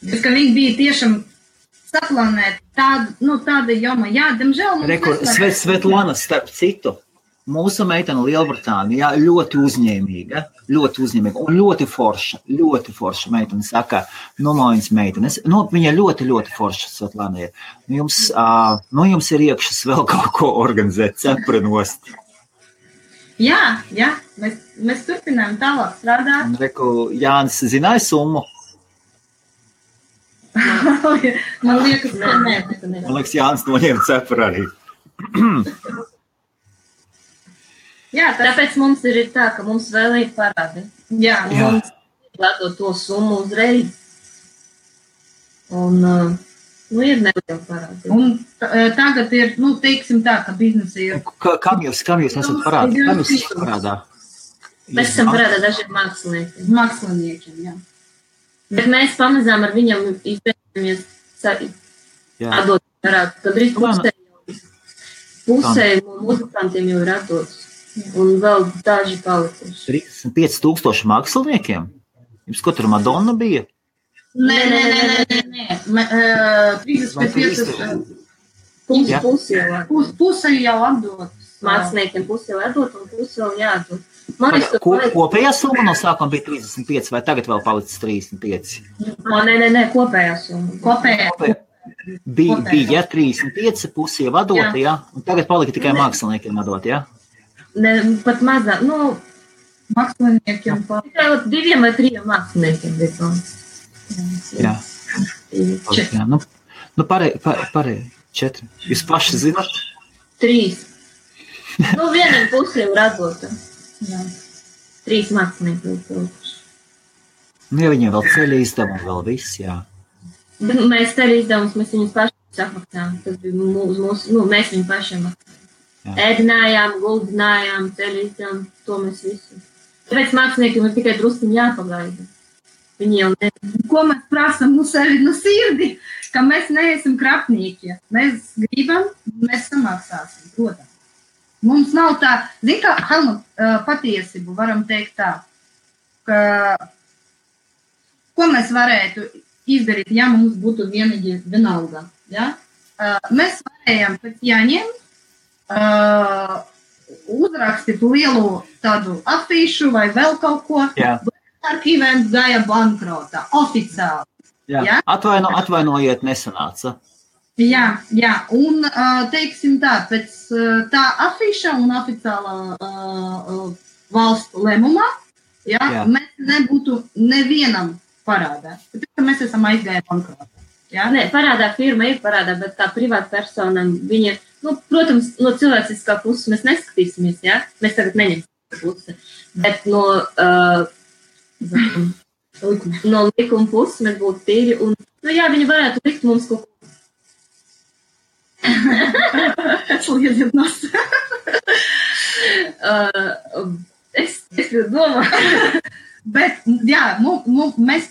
Bet, ka viņi bija tiešām saplānēti tāda joma, diemžēl mums Svetlana, starp citu, mūsu meitene Lielbritānijā ļoti uzņēmīga un ļoti forša meitene saka, Nomojas meitenes, viņa ļoti forša Svetlana ir. Jums ir iekšas vēl kaut ko organizēt, cepurinost. Jā, mēs turpinām tālāk strādāt. Reku, Jānis zināja summu? Man liekas, nē. Man liekas, Jānis noņēma cepuri arī. Jā, Tāpēc mums ir tā, ka mums vēl ir parādi. Jā. Mums ledot to summu uzreiz. Un, ir neliela parādi. Un tagad ir, teiksim tā, ka biznesa ir. Kam jūs esat parādā? Kam jūs esat parādā? Mēs esam parādā dažiem māksliniekiem. Māksliniekiem, jā. Bet mēs pamazām ar viņam izbēgamies atdot parādu. Kad arī pusē muzikantiem jau ir atdots. Un vēl daži palikuši. 35,000 māksliniekiem? Jums ko tur Madonna bija? Nē. 35. Puse jau atdot. Māksliniekiem puse jau atdot un puse vēl jāatdot. Kopējā summa no sākuma bija 35, vai tagad vēl palicis 35? Nē, kopējā summa. Kopējā. Bija 35, pusi jau atdota, jā? Un tagad palika tikai māksliniekiem atdot, jā? Ne, pat mazāk, māksliniekiem tikai 2 vai 3 māksliniekiem bija. Jā. Pārēj, 4. Jūs paši zināt? 3. Vienam pusi jau radota. 3 mākslinieki jau pilkuši. Ja viņiem vēl ceļa izdevumi, vēl viss, jā. Mēs ceļa izdevumus, mēs viņus paši apmaksājām. Tas bija mūsu, mēs viņu pašiem maksājām. Ēdinājām, guldinājām, ceļa izdevumu, to mēs visu. Tāpēc māksliniekiem ir tikai drusciņi jāpagaida. Viņi jau ne... Ko mēs prasam sevi sirdi, ka mēs neesam krapnieki. Mēs gribam, mēs samaksāsim, protams. Mums nav tā, zin kā, Helmut, patiesību varam teikt tā, ka ko mēs varētu izdarīt, ja mums būtu vienalga. Ja? Mēs varējām pēc jāņem uzrakstīt lielu tādu afīšu vai vēl kaut ko. Archivens gāja bankrota, oficiāli. Jā. Atvainojiet, nesanāca. Jā, un teiksim tā, pēc tā afīša un oficiālā valstu lēmumā, mēs nebūtu nevienam parādā. Tāpēc mēs esam aizgājuši bankrotā. Nē, parādā firma ir parādā, bet tā privāta persona, viņa, protams, no cilvēciskā puses mēs neskatīsimies, jā? Mēs tagad neņemsim pusi, bet no likuma puses mēs būtu tīri un, viņi varētu likt mums kaut ko. Es domāju. Bet, mēs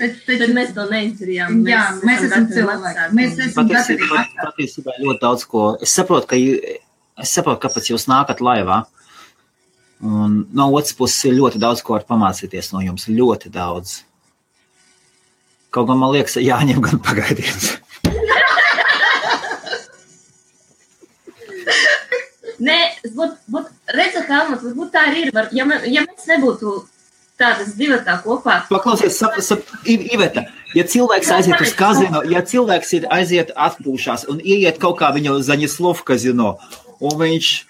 to neizdarījām. Mēs esam cilvēki. Mēs esam patiesībā ļoti daudz ko. Es saprotu, kāpēc jūs nākat laivā. Un no otras puses ir ļoti daudz ko var pamācīties no jums. Ļoti daudz. Kaut gan man liekas, jāņem gan pagaidiet. Nē, redzat, Helmut, varbūt tā arī ir. Ja mēs nebūtu tādas divatā kopā. Paklausies, Iveta, ja cilvēks aiziet uz kazino, ja cilvēks aiziet atpūšās un ieiet kaut kā viņu Zaņislovu kazino, un viņš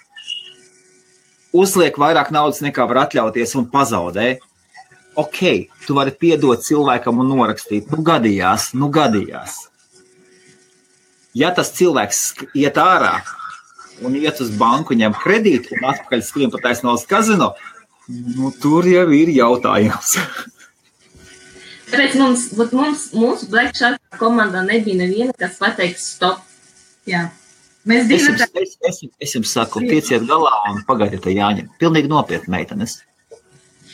uzliek vairāk naudas nekā var atļauties un pazaudē, tu vari piedot cilvēkam un norakstīt. Gadījās. Ja tas cilvēks iet ārā un iet uz banku, ņem kredītu un atpakaļ skrien pa taisnās kazino, tur jau ir jautājums. Tāpēc mūsu Black Shark komandā nebija neviena, kas pateiks stop. Jā. Es jums saku, tieciet galā un pagaidiet jāņem. Pilnīgi nopietni, meitenes.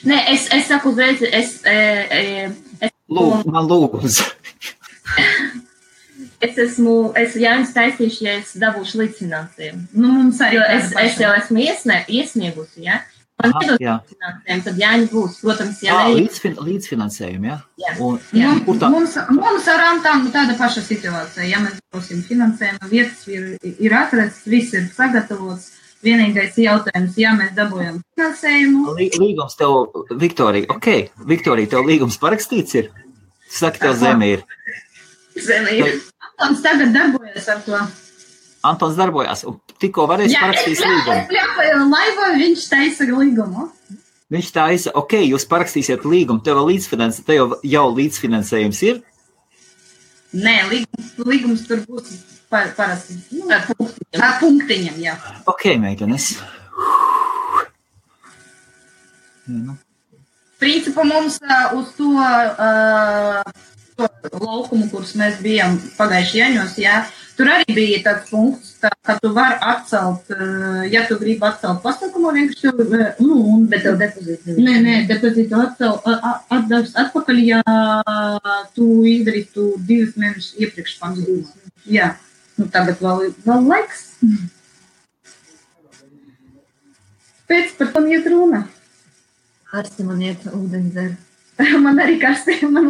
Nē, es saku uzreiz, man lūgums. Es Jānis taisīšu, ja es dabūšu līdzfinansējumu. Es jau esmu iesniegusi, ja? Man nedod līdzfinansējumu, tad Jāņi būs, protams, līdzfinansējumu, ja? Mums ar Antām tāda paša situācija. Ja mēs būsim finansējumu, vietas ir atrasts, viss ir sagatavots. Vienīgais jautājums, ja mēs dabūjam finansējumu. Līgums tev, Viktorija, Viktorija, tev līgums parakstīts ir? Saki, tev zeme ir. Zeme ir. Antons tagad darbojas ar to. Antons darbojās, un tikko varēs parakstīt līgumu. Laivā viņš taisa līgumu. Viņš taisa, jūs parakstīsiet līgumu, tev jau līdzfinansējums ir? Nē, līgums tur būs parasti. Ar punktiņam, jā. Meitenes. Principā mums uz to laukumu, kurus mēs bijām pagājuši Jaņos, jā, tur arī bija tāds punkts, ka tu vari atcelt, ja tu gribi atcelt pasākumu, vienkārši Bet tev depozītu Nē, depozītu atdevis atpakaļ, ja tu izdarītu 2 mēnešus iepriekš pasākumu. Jā, tagad vēl laiks. Pēc par tam iet runa. Karsti man iet ūdeni dzer. Man arī karsti, man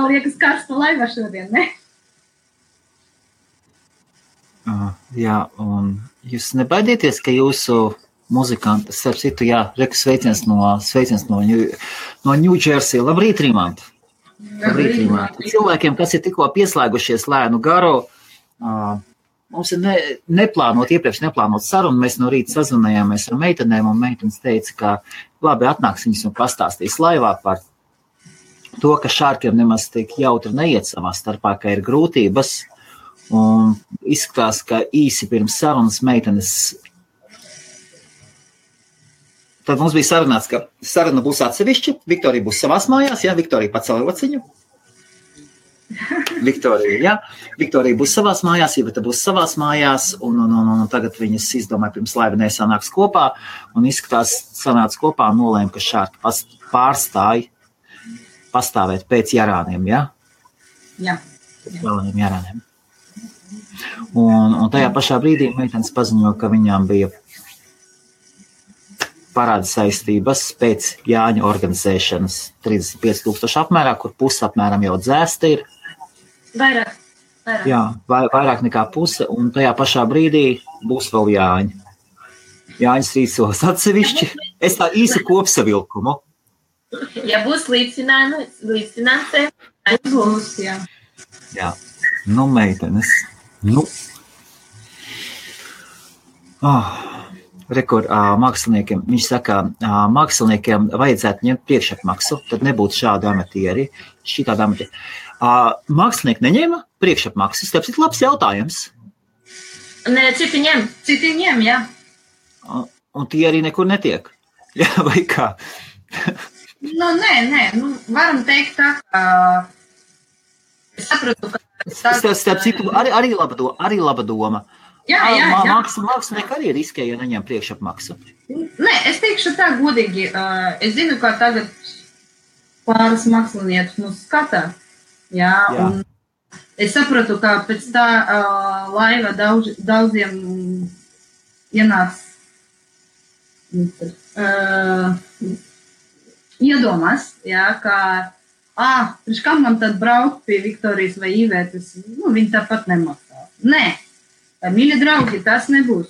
liekas karsta laiva šodien, ne? Jā, un jūs nebaidieties, ka jūsu muzikanti, starp citu, jā, sveiciens no New Jersey. Labrīt, Rimant! Labrīt, Rimant! Cilvēkiem, kas ir tikko pieslēgušies lēnu garu, mums ir iepriekš neplānot sarunu, mēs no rīta sazvanījāmies ar meitenēm, un meitenes teica, ka labi atnāks viņas un pastāstīs laivā par to, ka šārkiem nemaz tik jautri neiet savā starpā, ka ir grūtības, un izskatās, ka īsi pirms sarunas meitenes. Tad mums bija sarunāts, ka saruna būs atsevišķi, Viktorija būs savās mājās, jā, Viktorija pacēla rociņu. Viktorija būs savās mājās, Iveta būs savās mājās, un tagad viņas izdomāja pirms laiva nesanāks kopā, un izskatās sanāca kopā un nolēma, ka šārki pārstāja pastāvēt pēc jarāniem, jā? Jā. Vēlējiem jarāniem. Un tajā pašā brīdī meitenes paziņoja, ka viņām bija parāda saistības pēc Jāņa organizēšanas 35,000 apmērā, kur puse apmēram jau dzēsta ir. Vairāk. Jā, vairāk nekā puse, un tajā pašā brīdī būs vēl Jāņi. Jāņas rīcos atsevišķi. Es tā īsi kopsavilkumu. Ja būs līdzfinansējums, būs, jā. Jā, meitenes. Māksliniekiem, viņš saka, māksliniekiem vajadzētu ņemt priekšapmaksu, tad nebūtu šādi amatieri, šitādi amatieri. Mākslinieki neņēma priekšapmaksas, tāpēc ir labs jautājums. Nē, citi ņem, jā. Un tie arī nekur netiek, jā, vai kā? Nē, varam teikt tā, ka es sapratu, ka... Starp citu, arī laba doma. Jā. Mākslinieki arī riskē, ja neņem priekšapmaksu. Nē, es teikšu tā godīgi. Es zinu, ka tagad pāris māksliniekus mūs skatā. Jā. Un es sapratu, ka pēc tā laiva daudziem ienāks iedomās, jā, ka priekš kam man tad braukt pie Viktorijas vai Ivetas, viņi tāpat nemaksā. Nē, mīļi draugi, tas nebūs.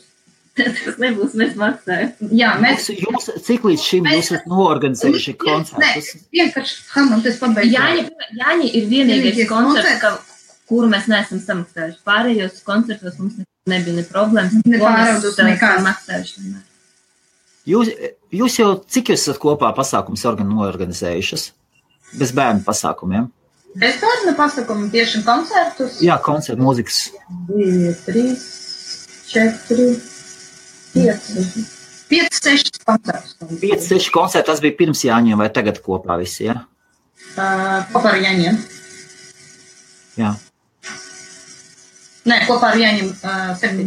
Tas nebūs, mēs maksājam. Jā, Jūs cik līdz šim jūs esat noorganizējuši koncertus? Nē, vienkārši, es pabeigšu. Jāņi ir vienīgais koncerts, kuru mēs neesam samaksājuši. Pārējos koncertos mums nebija ne problēmas. Nepāraudus nekāds. Maksājuši. Jūs jau cik jūs esat kopā pasākums noorganizējušas? Bez bērnu pasākumiem? Bez bērnu pasākumu tieši koncertus? Jā, koncertu mūzikas. 2, 3, 4, 5, 6 koncertus. 5, 6 koncerti, tas bija pirms Jāņiem vai tagad kopā visi, jā? Kopā ar Jāņiem. Jā. Nē, kopā ar Jāņiem 7.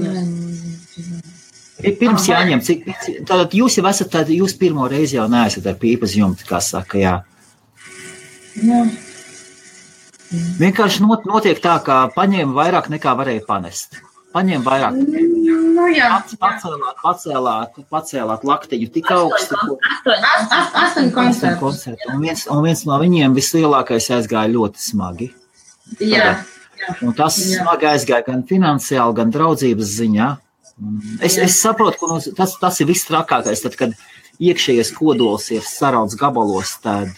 Pirms Jāņiem, tātad jūs jau esat, jūs pirmo reizi jau neesat ar pīpas jumti, kā saka, jā. Jā. Vienkārši notiek tā, ka paņēma vairāk nekā varēja panest. Paņēma vairāk. Jā. Pacēlāt laktiņu tik augstu. 8 koncertu. Un viens no viņiem vislielākais aizgāja ļoti smagi. Jā. Un tas smagi aizgāja gan finansiāli, gan draudzības ziņā. Es saprotu, ka tas ir viss trakākais, tad, kad iekšējais kodols ir sarauts gabalos, tad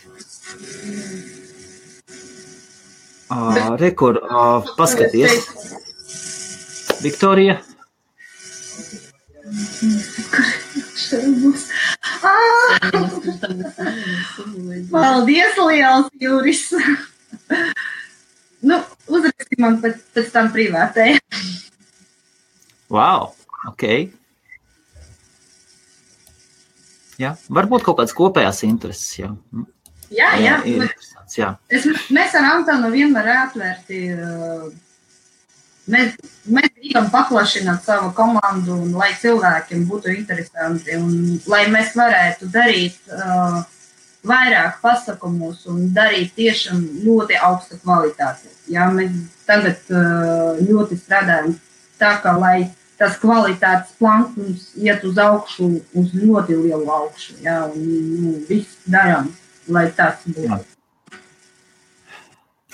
rekur, paskaties. Viktorija. Paldies, liels Juris. Uzraksti man pēc tam privātē. Wow, ok. Jā, varbūt kaut kādas kopējās intereses, jā. Jā. Interesants, jā. Mēs ar Antonu vienmēr atvērti. Mēs gribam paplašināt savu komandu, un lai cilvēkiem būtu interesanti, un lai mēs varētu darīt vairāk pasākumus un darīt tiešām ļoti augstu kvalitāti. Jā, mēs tagad ļoti strādājam tā, ka lai tas kvalitātes plankums iet uz augšu, uz ļoti lielu augšu. Jā, un viss darām, lai tas būtu. Jā.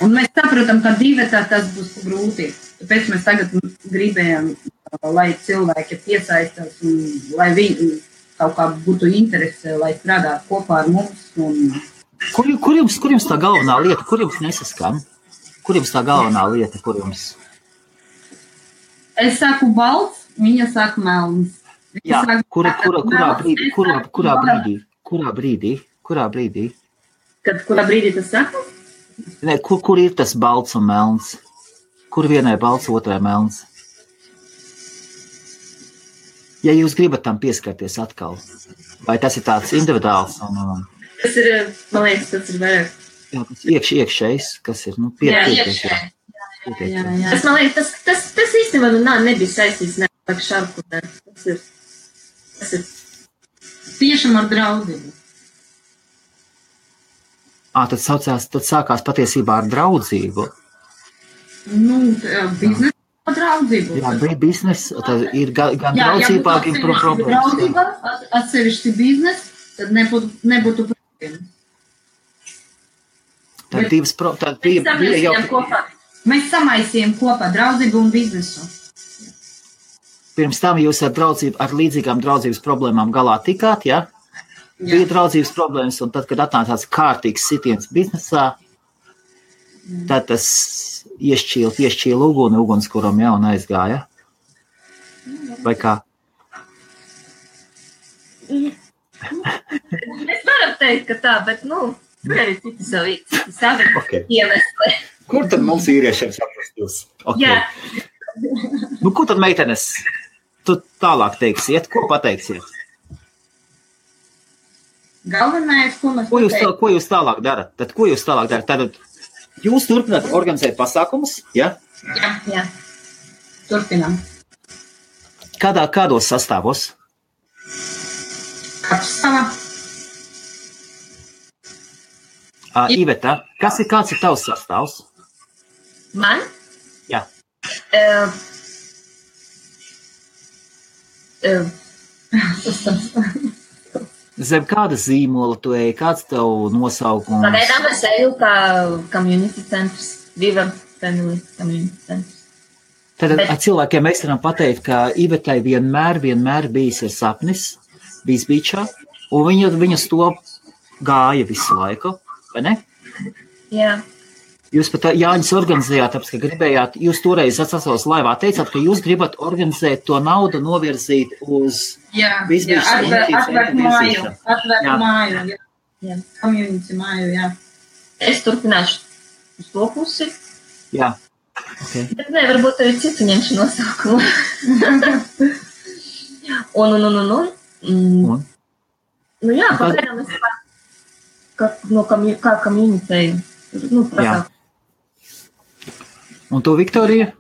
Un mēs saprotam, ka divatā tas būs grūti. Tāpēc mēs tagad gribējām, lai cilvēki piesaistās un lai viņi kaut kā būtu interese, lai strādātu kopā ar mums. Un... Kur jums tā galvenā lieta, kur jums nesaskan? Kur jums tā galvenā lieta, kur jums? Es saku balts, viņa saka melns. Jā, kurā brīdī? Kurā brīdī tas saka? Ne, kur ir tas balts un melns? Kur vienai balts, otrai melns? Ja jūs gribat tam pieskarties atkal, vai tas ir tāds individuāls? Tas ir, man liekas, tas ir vairāk. Jā, tas iekšējs, kas ir, pietiekties. Jā. Tas, man liekas, tas īstenībā nebija saistīts ne ar šarku. Tas ir tiešām ar draudzību. Tad sākās patiesībā ar draudzību. Biznesa draudzību. Jā, biznesa, tad ir gan draudzībā, gan problēmas. Draudzība, atsevišķi biznes, tad nebūtu problēmas. Tad divas bija jau... Mēs samaisījām kopā draudzību un biznesu. Pirms tam jūs ar līdzīgām draudzības problēmām galā tikāt, ja? Bija draudzības problēmas, un tad, kad atnāca tāds kārtīgs sitiens biznesā, tad tas iešķīla ugunskuram jau un aizgāja. Vai kā? Mēs varam teikt, ka tā, bet, tur arī citi savi iemesli. Kur tad mums vīriešiem saprast jūs? Okay. Jā. Ko tad meitenes? Tu tālāk teiksiet, ko pateiksiet? Galvenais, ko mēs Ko jūs tālāk darat? Tad jūs turpināt organizēt pasākumus, ja? Jā. Turpinām. Kādos sastāvos? Kapstāvā. Iveta, kāds ir tavs sastāvs? Man? Jā. Zem kāda zīmola tu ej, kāds tev nosaukums? Pagaidām es eju kā community centrs, Viva Family Community centrs. Tad cilvēkiem mēs varam pateikt, ka Ivetai vienmēr bijis ir sapnis, bijis beachā, un viņas to gāja visu laiku, vai ne? Jā. Jūs pat Jāņus organizējāt, tāpēc, ka gribējāt, jūs toreiz atsasos laivā teicāt, ka jūs gribat organizēt to naudu novirzīt uz atvērt māju, community māju, jā. Es turpināšu uz to pusi. Jā. Okay. Bet varbūt arī citu ņemšu nosaukumu. Jā, pagaidām es kā community. Jā. Un tu, Viktorija?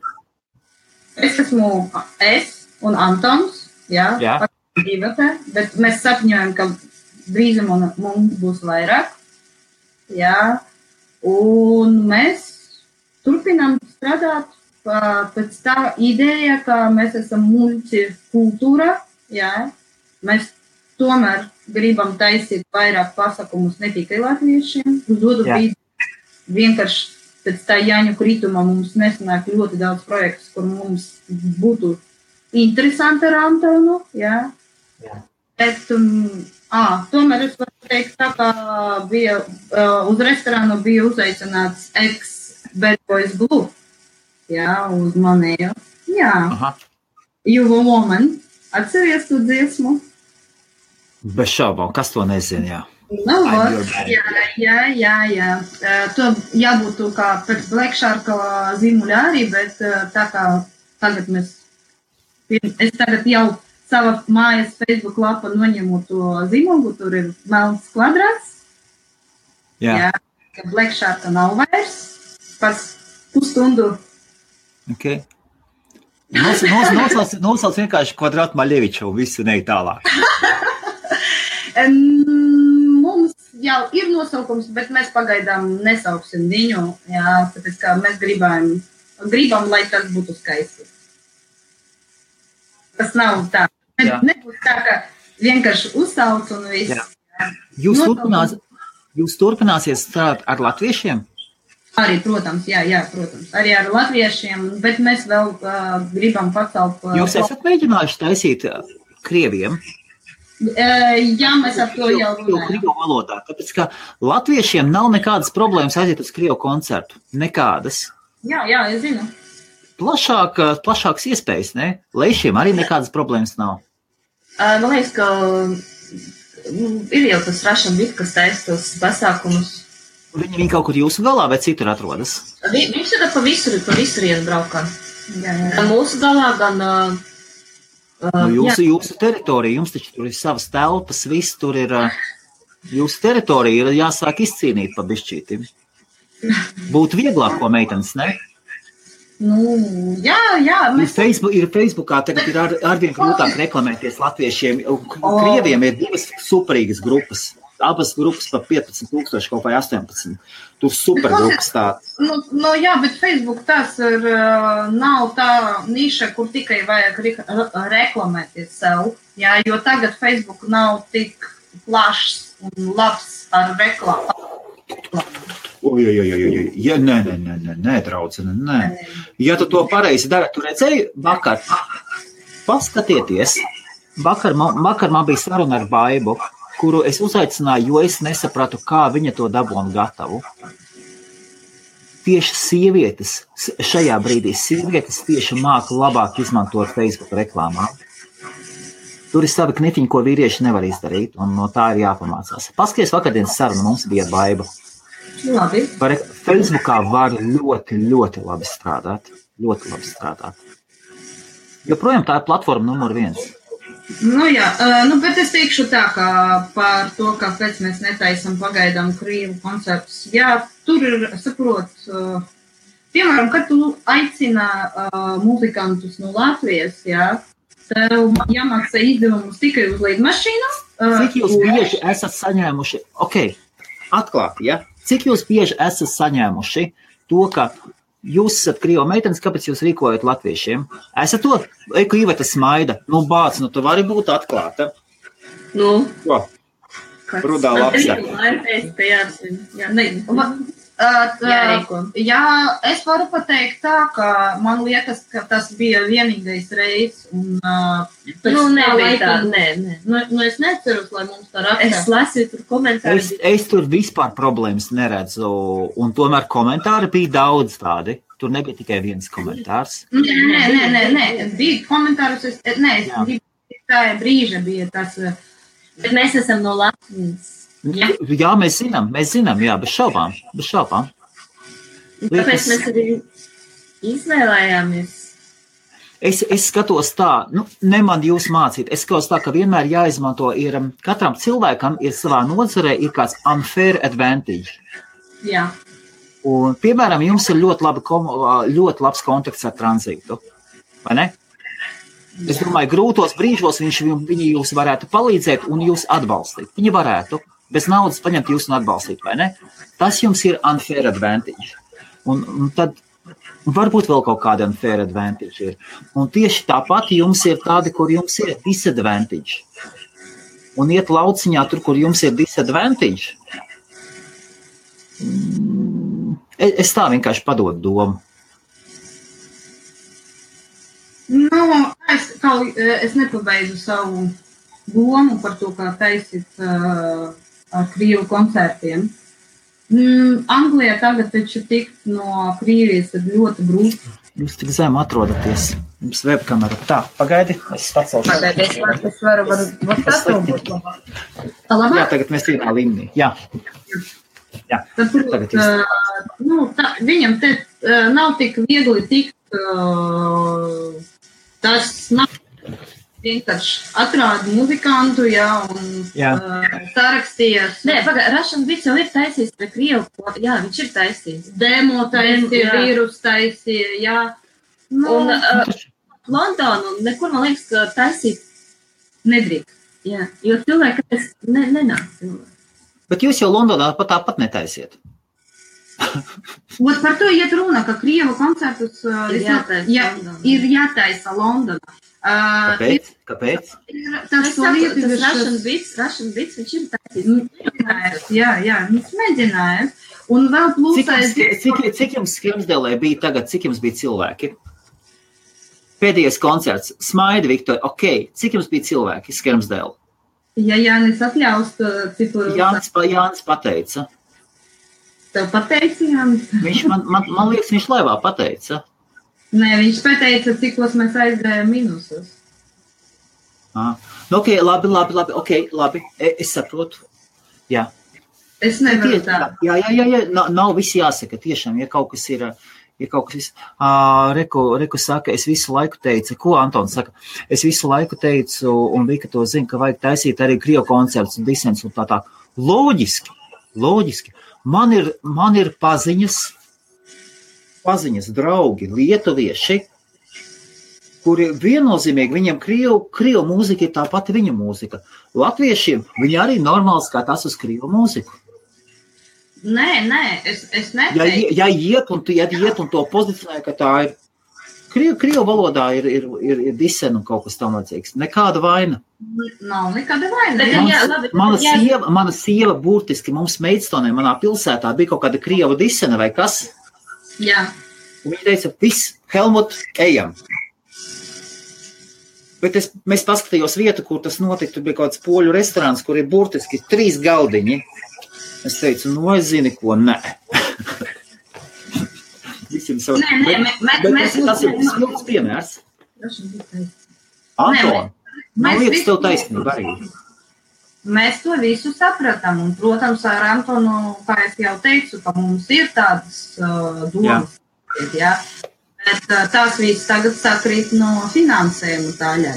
Es esmu un Antons, jā. Bet mēs sapņojam, ka drīzumā mums būs vairāk, jā, un mēs turpinām strādāt pēc tā ideja, ka mēs esam multikultūra, jā, mēs tomēr gribam taisīt vairāk pasākumus ne tikai latviešiem, uz otru brīdi vienkārši pēc tā Jāņu krituma mums nesanāk ļoti daudz projektus, kur mums būtu interesanti ar Antonu, jā. Bet, tomēr es varu teikt, tā kā bija uz restorānu bija uzaicināts ex-Bad Boys Blue, jā, uz manējo, jā. You a Woman, atceries tu dziesmu? Bez šaubām, kas to nezina, jā. Jā. To jābūt kā pēc Black Shark zīmuļa arī, bet tā kā tagad es tagad jau sava mājas Facebook lapa noņemu to zīmogu, tur ir melns kvadrāts. Jā, ka Black Sharka nav vairs. Pēc pusstundu. Okay. Nosauc vienkārši Kvadrātu Maļeviču un visu neik tālāk. Mums jau ir nosaukums, bet mēs pagaidām nesauksim viņu, jā, tāpēc kā mēs gribam, lai tas būtu skaisti. Tas nav tā. Nebūs tā, ka vienkārši uzsauc un viss. Jūs turpināsiet strādāt ar latviešiem? Arī, protams, protams. Arī ar latviešiem, bet mēs vēl gribam pacelt. Jūs esat mēģinājuši taisīt krieviem? Jā, mēs ar to jau runājam. Krievu valodā, tāpēc, ka latviešiem nav nekādas problēmas aiziet uz krievu koncertu. Nekādas. Jā, es zinu. Plašākas iespējas, ne? Leišiem arī nekādas problēmas nav. Man liekas, ka ir jau tas Russian Beat, kas taisa tos pasākumus. Viņi kaut kur jūsu galā vai citur atrodas? Viņš ir pa visurienu braukā. Gan mūsu galā, gan... Jūsu teritorija, jums taču tur ir savas telpas, viss tur ir, jūsu teritorija ir jāsāk izcīnīt pa bišķīti. Būtu vieglāk, ko meitenes, ne? Jā. Ir Facebookā, tagad ir arvien grūtāk reklamēties latviešiem, krieviem ir divas superīgas grupas. Abas grupas pa 15,000 kaut vai 18. Tur supergrupas tāds. Jā, bet Facebook tas nav tā niša, kur tikai vajag reklamēties sev. Jā, jo tagad Facebook nav tik plašs un labs ar reklāmu. Nē, draudzene, nē. Ja tu to pareizi dari, tu redzēji vakar. Paskatieties. Vakar man bija saruna ar Baibu, kuru es uzaicināju, jo es nesapratu, kā viņa to dabūna gatavu. Tieši sievietes, šajā brīdī sievietes tieši māka labāk izmantot Facebook reklāmā. Tur ir savi knifiņi, ko vīrieši nevar izdarīt, un no tā ir jāpamācās. Paskaties, vakardienas saruna mums bija Baiba. Labi. Facebookā var ļoti, ļoti labi strādāt. Ļoti labi strādāt. Joprojām tā ir platforma numur 1. Bet es teikšu tā, ka par to, kāpēc mēs netaisam pagaidām krievu koncertus. Jā, tur ir, saprot, piemēram, kad tu aicina muzikantus no Latvijas, jā, tev jāmaksā izdevumus tikai uz lidmašīnu. Cik jūs bieži esat saņēmuši, atklāti, ja? Cik jūs bieži esat saņēmuši to, ka jūs esat krievu meitenes, kāpēc jūs rīkojat latviešiem? Esat to, ka Iveta smaida. Bāc, tu vari būt atklāta. Rudā lapsa. Jā, es varu pateikt tā, ka man liekas, ka tas bija vienīgais reiz. Es neceru, lai mums tā rakstā. Es lasīju tur komentārus. Es tur vispār problēmas neredzu, un tomēr komentāri bija daudz tādi. Tur nebija tikai viens komentārs. Nē, bija komentārus. Tā brīža bija tas. Bet mēs esam no Latvijas. Jā, mēs zinām, jā, bez šaubām. Tāpēc mēs arī izvēlējāmies. Es skatos tā, ne man jūs mācīt, es skatos tā, ka vienmēr jāizmanto ir, katram cilvēkam ir savā nozarē ir kāds unfair advantage. Jā. Un, piemēram, jums ir ļoti labs kontakts ar tranzītu, vai ne? Es domāju, grūtos brīžos viņi jūs varētu palīdzēt un jūs atbalstīt. Viņi varētu bez naudas paņemt jūs un atbalstīt, vai ne? Tas jums ir unfair advantage. Un tad varbūt vēl kaut kāda unfair advantage ir. Un tieši tāpat jums ir tādi, kur jums ir disadvantage. Un iet lauciņā tur, kur jums ir disadvantage. Es tā vienkārši padodu domu. Es nepabeidzu savu domu par to, kā taisīt ar krievu koncertiem. Anglijā tagad taču tikt no Krievijas ir ļoti grūti. Jūs tik zem atrodaties. Jums webkamera. Tā, pagaidi, es pacelšu. Es varu pacelbūt. Jā, tagad mēs vienā līmenī. Jā. Tagad viņam te nav tik viegli tikt. Tas nav. vienkārši atrāda muzikantu, un sarakstījās. Nē, Russian Beats jau ir taisījis pie Krievu, jā, viņš ir taisījis. Demo taisīja, vīrus taisīja, jā. Un Londonu nekur, man liekas, ka taisīt nedrīkst. Jā, jo cilvēki nenāk cilvēki. Bet jūs jau Londonā tāpat netaisiet. Par to iet runa, ka Krievu koncertus ir jātaisa Londonā. Kāpēc? Tas Russian Beats, viņš ir taisījis. Jā, viņš mēģināja. Un vēl plūsais... Cik jums Skremsdelē bija tagad, cik jums bija cilvēki? Pēdējais koncerts, Smaida Viktorija, cik jums bija cilvēki Skremsdelē? Ja Jānis atļaus, citu... Jānis pateica. Tev pateica, Jānis? Man liekas, viņš laivā pateica. Nē, viņš pateica, cikos mēs aizgājām minusos. Labi, es saprotu. Jā. Es nevaru tā. Jā, nav visi jāsaka, tiešām, ja kaut kas ir kaut kas... Reku saka, es visu laiku teicu, ko Antons saka? Es visu laiku teicu, un Vika to zina, ka vajag taisīt arī Krievu koncerts un disens un tā. Loģiski. Man ir paziņas, draugi, lietuvieši, kuri viennozīmīgi, viņiem Krievu mūzika ir tā pati viņa mūzika. Latviešiem viņi arī normāli skatās uz Krievu mūziku. Nē, es neteicu. Ja iet un to pozicionē, ka tā ir Krievu valodā ir disen un kaut kas tam vajadzīgs. Nekāda vaina. Nav nekāda vaina. Mana sieva burtiski mums Meidstonē, manā pilsētā bija kaut kāda Krieva disena vai kas. Jā. Un viņa teica, viss, Helmut, ejam. Bet mēs paskatījos vietu, kur tas notika, tur bija kaut kāds poļu restorāns, kur ir burtiski 3 galdiņi. Es teicu, es zini, ko, nē. Tas ir smilts piemērs. Anton, man liekas, tev taisnība arī. Mēs to visu sapratam, un, protams, ar Antonu, kā es jau teicu, ka mums ir tādas domas. Jā. Bet tās viss tagad sakrīt no finansējuma daļā,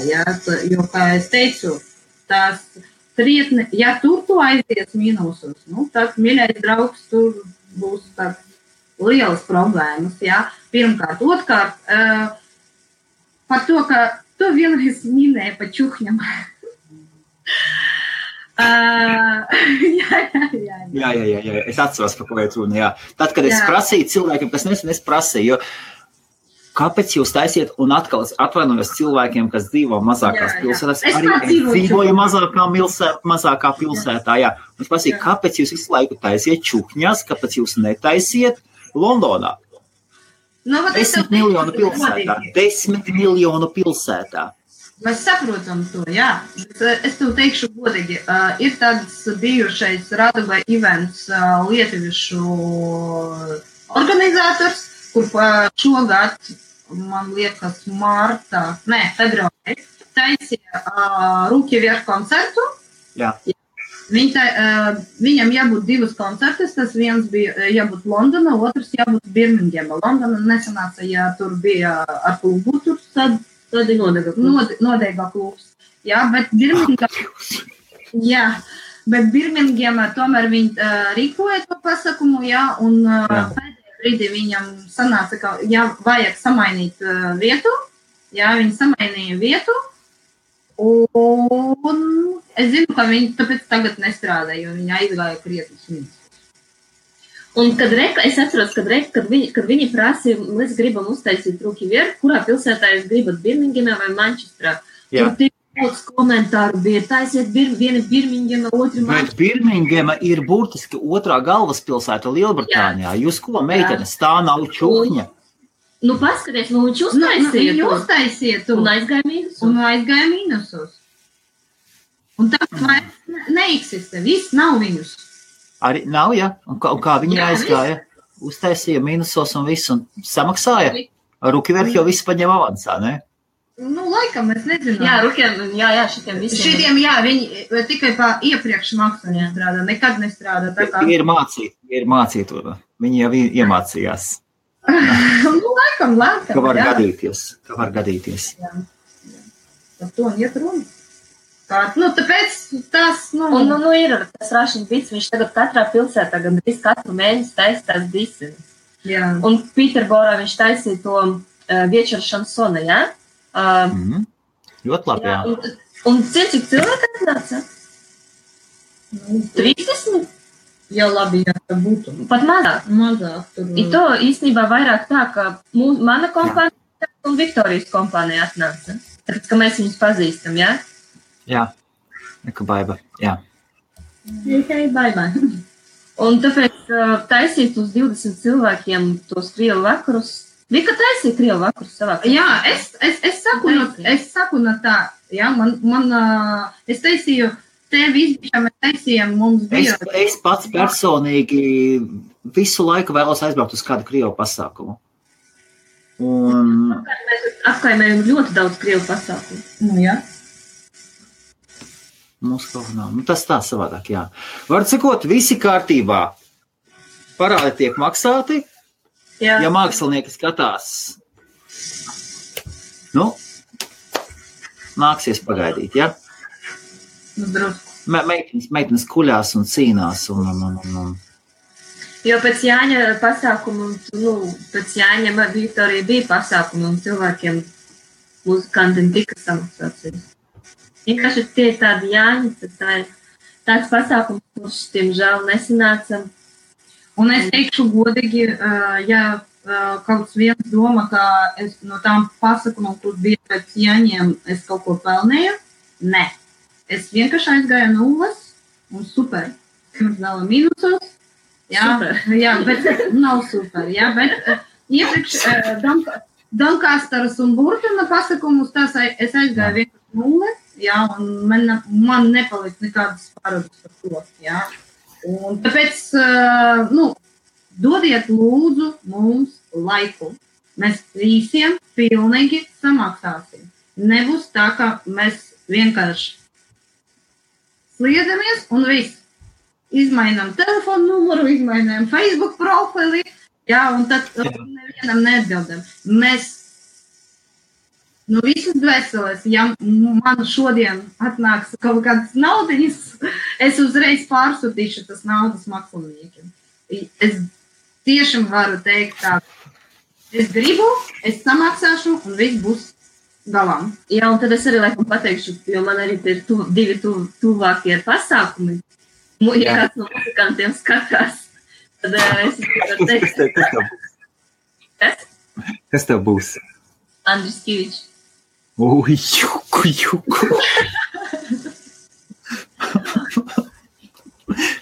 jo, kā es teicu, tās trietni, ja tur tu aizies mīnusos, tad, mīļais draugs, tur būs lielas problēmas, Pirmkārt, otrkārt, par to, ka tu vienreiz minēji pa čuhņam. Jā, es atceros, par ko iet runa, jā. Tad, kad es prasīju cilvēkiem, kas es prasīju, kāpēc jūs taisiet un atkal atvainojos cilvēkiem, kas dzīvo mazākās pilsētās, arī dzīvoju mazākā pilsētā, jā. Es prasīju, kāpēc jūs visu laiku taisiet čukņās, kāpēc jūs netaisiet Londonā? 10 miljonu pilsētā. Mēs saprotam to, jā. Es tev teikšu godīgi, ir tāds bijušais Radugā events lietuviešu organizators, kur šogad, man liekas, februārī, taisīja Rūki Vierš koncertu. Jā. Viņam jābūt 2 koncertus, tas viens bija jābūt Londona, otrs jābūt Birmingema. Londona nesanāca, ja tur bija ar klubu, tur tad nodeiga klubs. Jā, bet Birmingema tomēr viņi rīkoja to pasakumu, un pēdējā brīdī viņam sanāca, ka vajag samainīt vietu, viņi samainīja vietu, un es zinu, ka viņi tāpēc tagad nestrādā, jo viņi aizgāja krietnes minus. Un es atceros, kad viņi prasīja, mēs gribam uztaisīt Rūki Vierš, kurā pilsētā jūs gribat Birmingemā vai Manchesterā. Tur tik daudz komentāru bija, taisiet viena Birmingema, otra Manchester. Bet Birmingema ir burtiski otrā galvaspilsēta Lielbritānijā. Jūs ko, meitenes, tā nav čuhņa? Paskaties, viņš uztaisiet un aizgāja mīnusos. Un tāpēc neeksistē, viss nav viņus. Arī nav, ja? Un kā viņi aizgāja? Uztaisīja mīnusos un visu, un samaksāja? Rūki Vierš jau visu paņem avansā, ne? Laikam, es nezinu. Šitiem visiem. Šitiem, viņi tikai pa iepriekš maksā nestrādā, nekad nestrādā. Tie ir mācīti, viņi jau iemācījās. Laikam. Ka var gadīties. Jā. Par to un iet runa. Tāpēc tas, Un, ir tas Rašņa Bits, viņš tagad katrā pilsētā gandrīz katru mēnesi taisa tās disenes. Jā. Un Pīterborā viņš taisīja to Viečera šansona, jā? Ļoti labi, jā. Un cik cilvēki atnāca? 30? Jā, labi, jā, tā būtu. Pat mazāk. Mazāk. Tur... I to īstenībā vairāk tā, ka mana kompānija un Viktorijas kompānija atnāca. Tāpēc, ka mēs viņus pazīstam, jā? Jā, neka baiba, jā. Tikai baimē. Un tāpēc taisīt uz 20 cilvēkiem tos krievu vakarus. Vika taisīja krievu vakarus savā kompānijā. Jā, es saku no tā, jā, es taisīju, tevi izbišā mēs taisījām, mums bija. Es pats personīgi visu laiku vēlos aizbraukt uz kādu krievu pasākumu. Un... Mēs apkaimējam ļoti daudz krievu pasākumu. Jā. Mums kaut nav. Tas tā savādāk, jā. Var cikot, visi kārtībā. Parādi tiek maksāti. Jā. Ja mākslinieki skatās, nāksies pagaidīt, jā? Meitenes kuļās un cīnās un. Jo pēc Jāņa pasākumu, pēc Jāņa Viktorija bija pasākumu un cilvēkiem muzikantiem tika samaksāts. Vienkārši tie tādi Jāņi, tāds pasākums, kurš tiemžēl nesanāca. Un es teikšu godīgi, ja kaut viens doma, ka es no tām pasākumiem, kur bija pēc Jāņiem, es kaut ko pelnēju, ne. Es vienkārši aizgāju nulles un super. Mums dala mīnusos. Jā, super. Jā, bet nav super. Jā, bet iepriekš Donkastaras un Burtuna pasākumus, es aizgāju vienkārši nulles. Jā, un man nepalikt nekādas pārādas par to, jā. Un tāpēc, dodiet lūdzu mums laiku. Mēs visiem pilnīgi samaksāsim. Nebūs tā, ka mēs vienkārši sliedamies un viss. Izmainām telefonu numuru, izmainām Facebook profili, jā, un tad nevienam neatbildam. Mēs visas dvēseles, ja man šodien atnāks kaut kādas naudiņas, es uzreiz pārsūtīšu tas naudas māksliniekiem. Es tiešām varu teikt tā, es gribu, es samaksāšu un viss būs galām. Jā, un tad es arī laikam pateikšu, jo man arī ir divi tuvākie pasākumi. Ja kāds no muzikantiem skatās, tad es varu teikt. Kas? Kas tev būs? Andris Kivičs. Juku.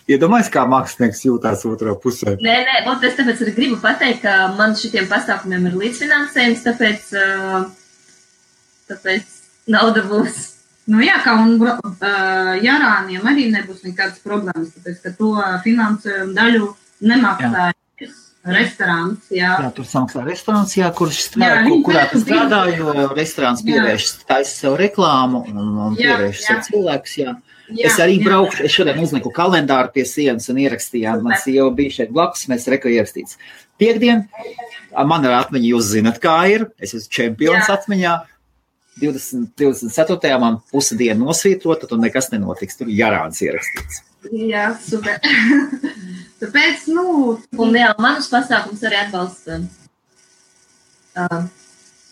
Iedomājies, kā mākslinieks jūtās otrā pusē. Nē, un es tāpēc arī gribu pateikt, ka man šitiem pasākumiem ir līdzfinansējums, tāpēc nauda būs. Jā, kā un Jarāniem arī nebūs nekādas problēmas, tāpēc, ka to finansējumu daļu nemaksāja. Restorāns, jā. Jā, tur samaksā restorāns, jā, kurā tu strādā, jo restorāns pievērš taisa sev reklāmu un pievērš sev cilvēkus, jā. Es arī braukšu, es šodien uzliku kalendāru pie sienas un ierakstījām, man sieva bija šeit blakus, mēs reko ierakstīts. Piektdien, man ar atmiņu jūs zinat, kā ir, es esmu čempions atmiņā, 24. man pusi dienu nosvītrota, tad nekas nenotiks, tur Jarāns ierakstīts. Jā, super. Tāpēc, Un jā, manus pasākums arī atbalsta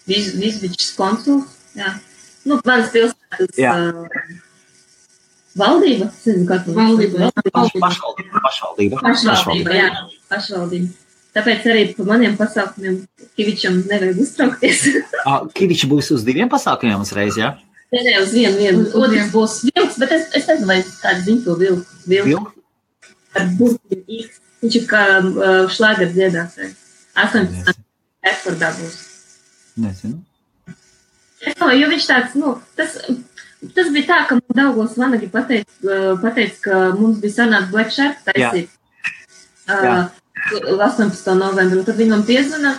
Vizbičs konsuls, jā. Manas pilsētas valdība, Pašvaldība, jā, pašvaldība. Tāpēc arī pa maniem pasākumiem Kivičam nevajag uztraukties. Kiviči būs uz 2 pasākumiem uzreiz, jā? Nē, uz vienu. Otrs būs vilks, bet es nezinu, vai tādu zinu to vilku. Ar burtiem X. Viņš ir kā šlāger dziedātājs. 18. Ekspordā būs. Nezinu. Jo viņš tāds, tas bija tā, ka man Daugavas Vanagi pateica, ka mums bija sanāks Black Shark taisīt 18. novembru. Tad viņi man piezvana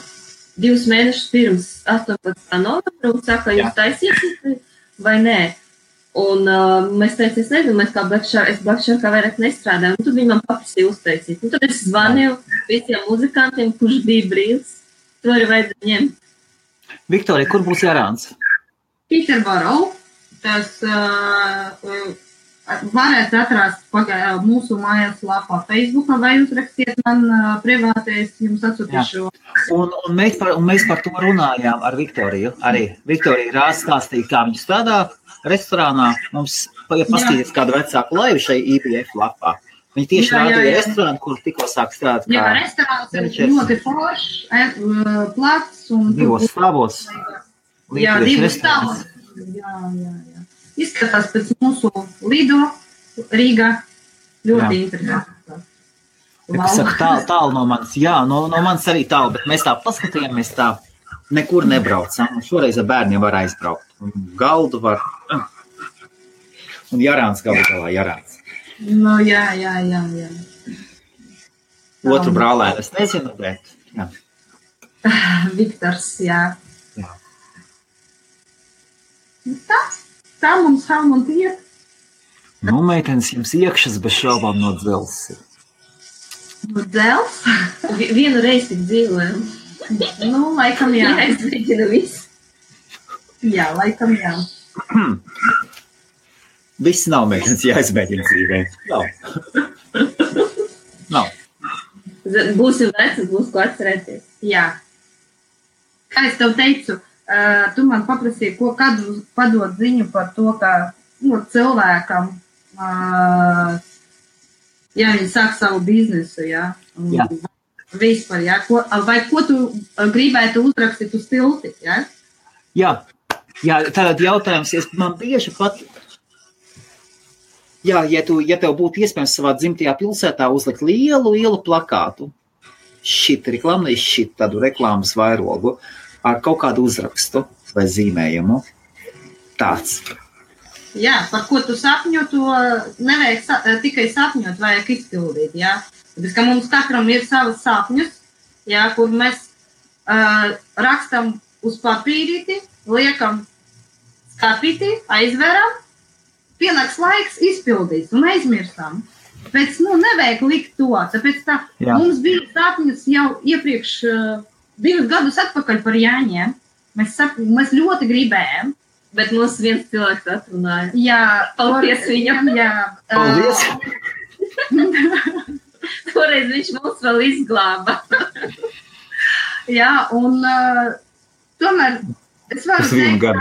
2 mēnešus pirms 18. novembru un saka, jūs taisīsiet vai nē. Un mēs teicām, es nezinu, mēs kā Black Sharkā vairāk nestrādājam. Un tad viņi man paprasīja uztaisīt. Un tad es zvanīju visiem muzikantiem, kurš bija brīvs. To arī vajadzēja ņemt. Viktorija, kur būs Jarāns? Pīterborā. tas varēs atrast mūsu mājaslapā Facebookā vai uzrakstiet man privātais, jums atsūtīšu. Un mēs par to runājām ar Viktoriju. Arī Viktorija Rāz stāstīja, kā viņa strādā restorānā. Mums paskatīties kādu vecāku laivu šai IBF lapā. Viņi tieši rādīja restorānu, kur tikko sāk strādāt. Jā, restorāns ir ļoti foršs, plats. 2 stāvos. Jā, 2 stāvos. Jā. Izskatās pēc mūsu Lido Rīgā. Ļoti interesanti. Es saku, tālu no manis. Jā, no manis arī tālu, bet mēs tā paskatījāmies tā, nekur nebraucam. Šoreiz ar bērniem var aizbraukt. Galdu var. Un Jarāns galā Jarāns. Nu, jā. Otru brālēnu es nezinu, bet jā. Viktors, jā. Tā mums Helmut iet. Nu, meitenes, jums iekšas bez šaubām no dzelzs. No dzelzs? Vienu reizi tik dzīvojam. Nu, laikam jā. Jāizmēģina viss. Jā, laikam jā. Viss nav meitenes jāizmēģina dzīvē. Nav. Būsim veci, būs ko atcerēties. Jā. Kā es tev teicu, tu man paprasīji, kādu padot ziņu par to, ka cilvēkam, ja viņi sāk savu biznesu, jā. Vispār, jā. Vai ko tu gribētu uzrakstīt uz tilti, jā? Jā, tātad jautājums, man bieži pat, ja tev būtu iespējams savā dzimtajā pilsētā uzlikt lielu plakātu, tādu reklāmas vairogu, ar kaut kādu uzrakstu vai zīmējumu, tāds. Jā, par ko tu sapņo, to nevajag tikai sapņot, vajag izpildīt, jā. Tāpēc, ka mums katram ir savas sapņus, jā, kur mēs rakstam uz papīrīti, liekam skapīti, aizveram, pienāks laiks izpildīt un aizmirstam. Tāpēc, nevajag likt to, tāpēc mums bija sapņus jau iepriekš 2 gadus atpakaļ par Jāņiem. Mēs ļoti gribējām. Bet mums viens cilvēks atrunāja. Jā, paldies viņam. Jā. Paldies. Toreiz viņš mums vēl izglāba. Jā, un tomēr es varu teikt,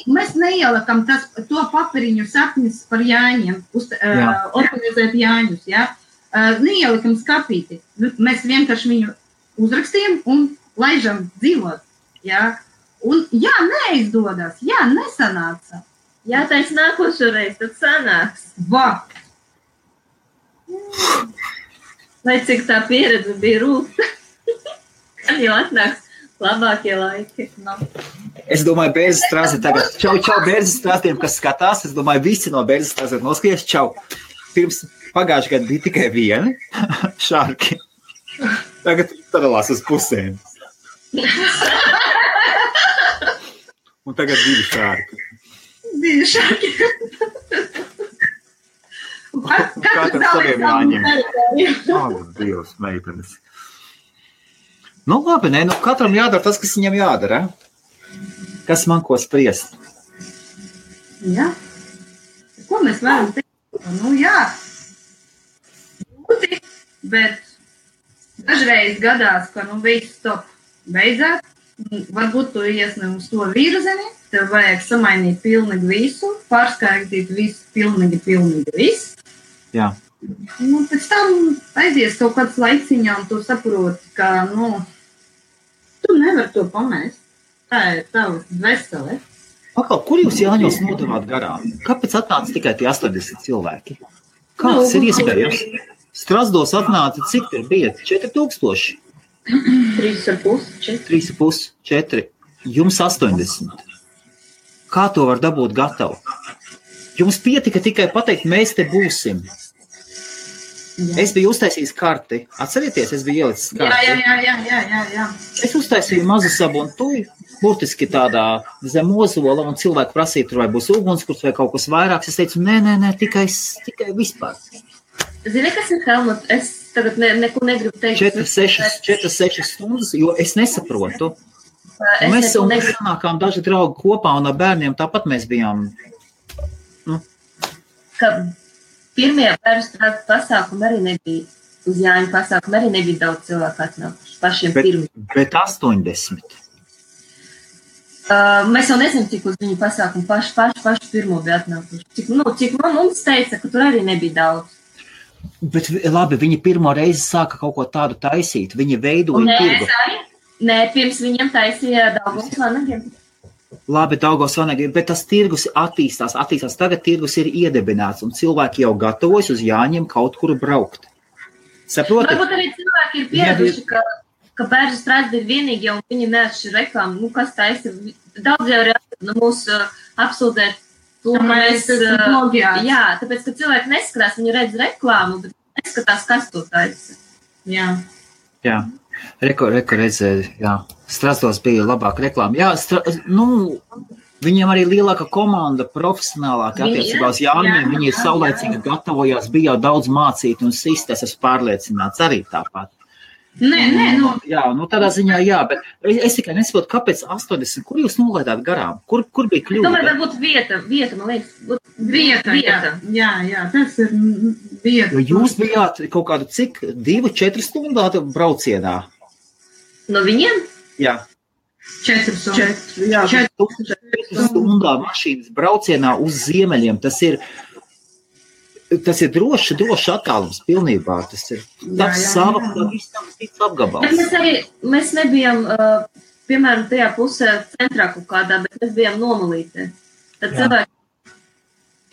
mēs neielakam to papiriņu sapņus par Jāņiem, organizēt Jāņus, jā. Neielikam skapīti. Mēs vienkārši viņu uzrakstījam un laižam dzīvot, jā. Un neizdodas, nesanāca. Jāteic nākošo reizi, tad sanāks. Lai cik tā pieredze bija rūta, kad jau atnāks labākie laiki. Es domāju, Bērzes strāzi tagad. Čau, Bērzes strāstiem, kas skatās. Es domāju, visi no Bērzes strāzi noskaties. Čau. Pirms pagājušajā gadā bija tikai vieni šārki. Tagad sadalās uz pusēm. Un tagad 2 šārki. 2 šārki. Katram saviem jāņem. Dievs, meitenes. Nu labi, katram jādara tas, kas viņam jādara. Kas man ko spriest? Jā. Ko mēs varam teikt? Būti, bet dažreiz gadās, ka viss top beidzās. Varbūt tu iesni uz to virzeni, tev vajag samainīt pilnīgi visu, pārskaitīt visu, pilnīgi visu. Jā. Pēc tam aizies kaut kāds laiciņā, un tu saproti, ka, tu nevar to pamest. Tā ir tava vesele. Kur jūs Jāņos nodevāt garām? Kāpēc atnāca tikai tie 80 cilvēki? Kā tas ir iespējams? Strasdos atnāca, cik tur bija? 4000? 3,5, 4. Jums 80. Kā to var dabūt gatavu? Jums pietika tikai pateikt, mēs te būsim. Jā. Es biju uztaisījis karti. Atcerieties, es biju ielicis karti. Jā. Es uztaisīju mazu sabuntuju, burtiski tādā zem ozola, un cilvēku prasīja, tur vai būs ugunskurs vai kaut kas vairāks. Es teicu, nē, tikai vispār. Zini, kas ir Helmut? Es tagad neko negribu teikt. 4-6 stundas, jo es nesaprotu. Mēs sanākām daži draugi kopā un ar bērniem tāpat mēs bijām. Ka pirmie bērnu pasākumi arī nebija, uz Jāņu pasākumu arī nebija daudz cilvēku atnākuši, pašiem pirmiem. Bet 80. Mēs jau nezinām, cik uz viņu pasākumu paši pirmo bija atnākuši. Cik mums teica, ka tur arī nebija daudz. Bet labi, viņi pirmo reizi sāka kaut ko tādu taisīt. Viņi veidoja tirgu. Nē, pirms viņiem taisīja Daugavas vanagiem. Labi, Daugavas vanagiem, bet tas tirgus attīstās. Tagad tirgus ir iedibināts, un cilvēki jau gatavojas uz Jāņiem kaut kur braukt. Saprotat? Varbūt arī cilvēki ir pieraduši, ka Bērzu strādi ir vienīgi, un viņi neatšķir reklāmu. Kas taisa? Daudz jau ir mūsu apsūdzēt to, ka mēs... Jā, tāpēc, ka cilvēki neskatās, viņi redz reklāmu, bet neskatās, kas to taisa. Jā. Reko redzēja, jā. Strasdos bija labāka reklāma. Jā, viņiem arī lielāka komanda, profesionālāka attiecībā uz Jāņiem. Viņi ir saulēcīgi gatavojās, bija jau daudz mācīti un sistēs, es pārliecināts arī tāpat. Jā, tādā ziņā jā, bet es tikai nesaprotu, kāpēc 80, kur jūs nolaidāt garām? Kur bija kļūda? Tomēr varbūt vieta, man liekas. Vieta. Jā, tas ir vieta. Jo jūs bijāt kaut kādu cik 2-4 stundu braucienā? No viņiem? Jā. 4 stundā mašīnas braucienā uz ziemeļiem, tas ir drošs attālums pilnībā. Tas ir sava apgabals. Mēs nebijām, piemēram, tajā pusē centrā kaut kādā, bet mēs bijām nomalītē. Tad cilvēki,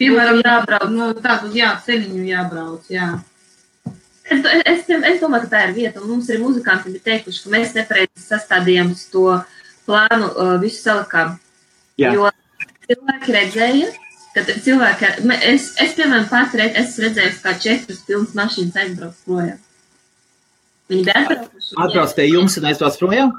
piemēram, jābrauc, ceļiņu jābrauc, jā. Es domāju, ka tā ir vieta, un mums arī muzikanti bija teikuši, ka mēs nepareizi sastādījām uz to plānu visu salikām. Jo cilvēki redzēja, kad cilvēki, es piemēram, patreiz esmu redzējusi, kā 4 pilnas mašīnas aizbrauc projām. Viņi bija atbraukuši. Atbrauc pie jums un aizbrauc projām?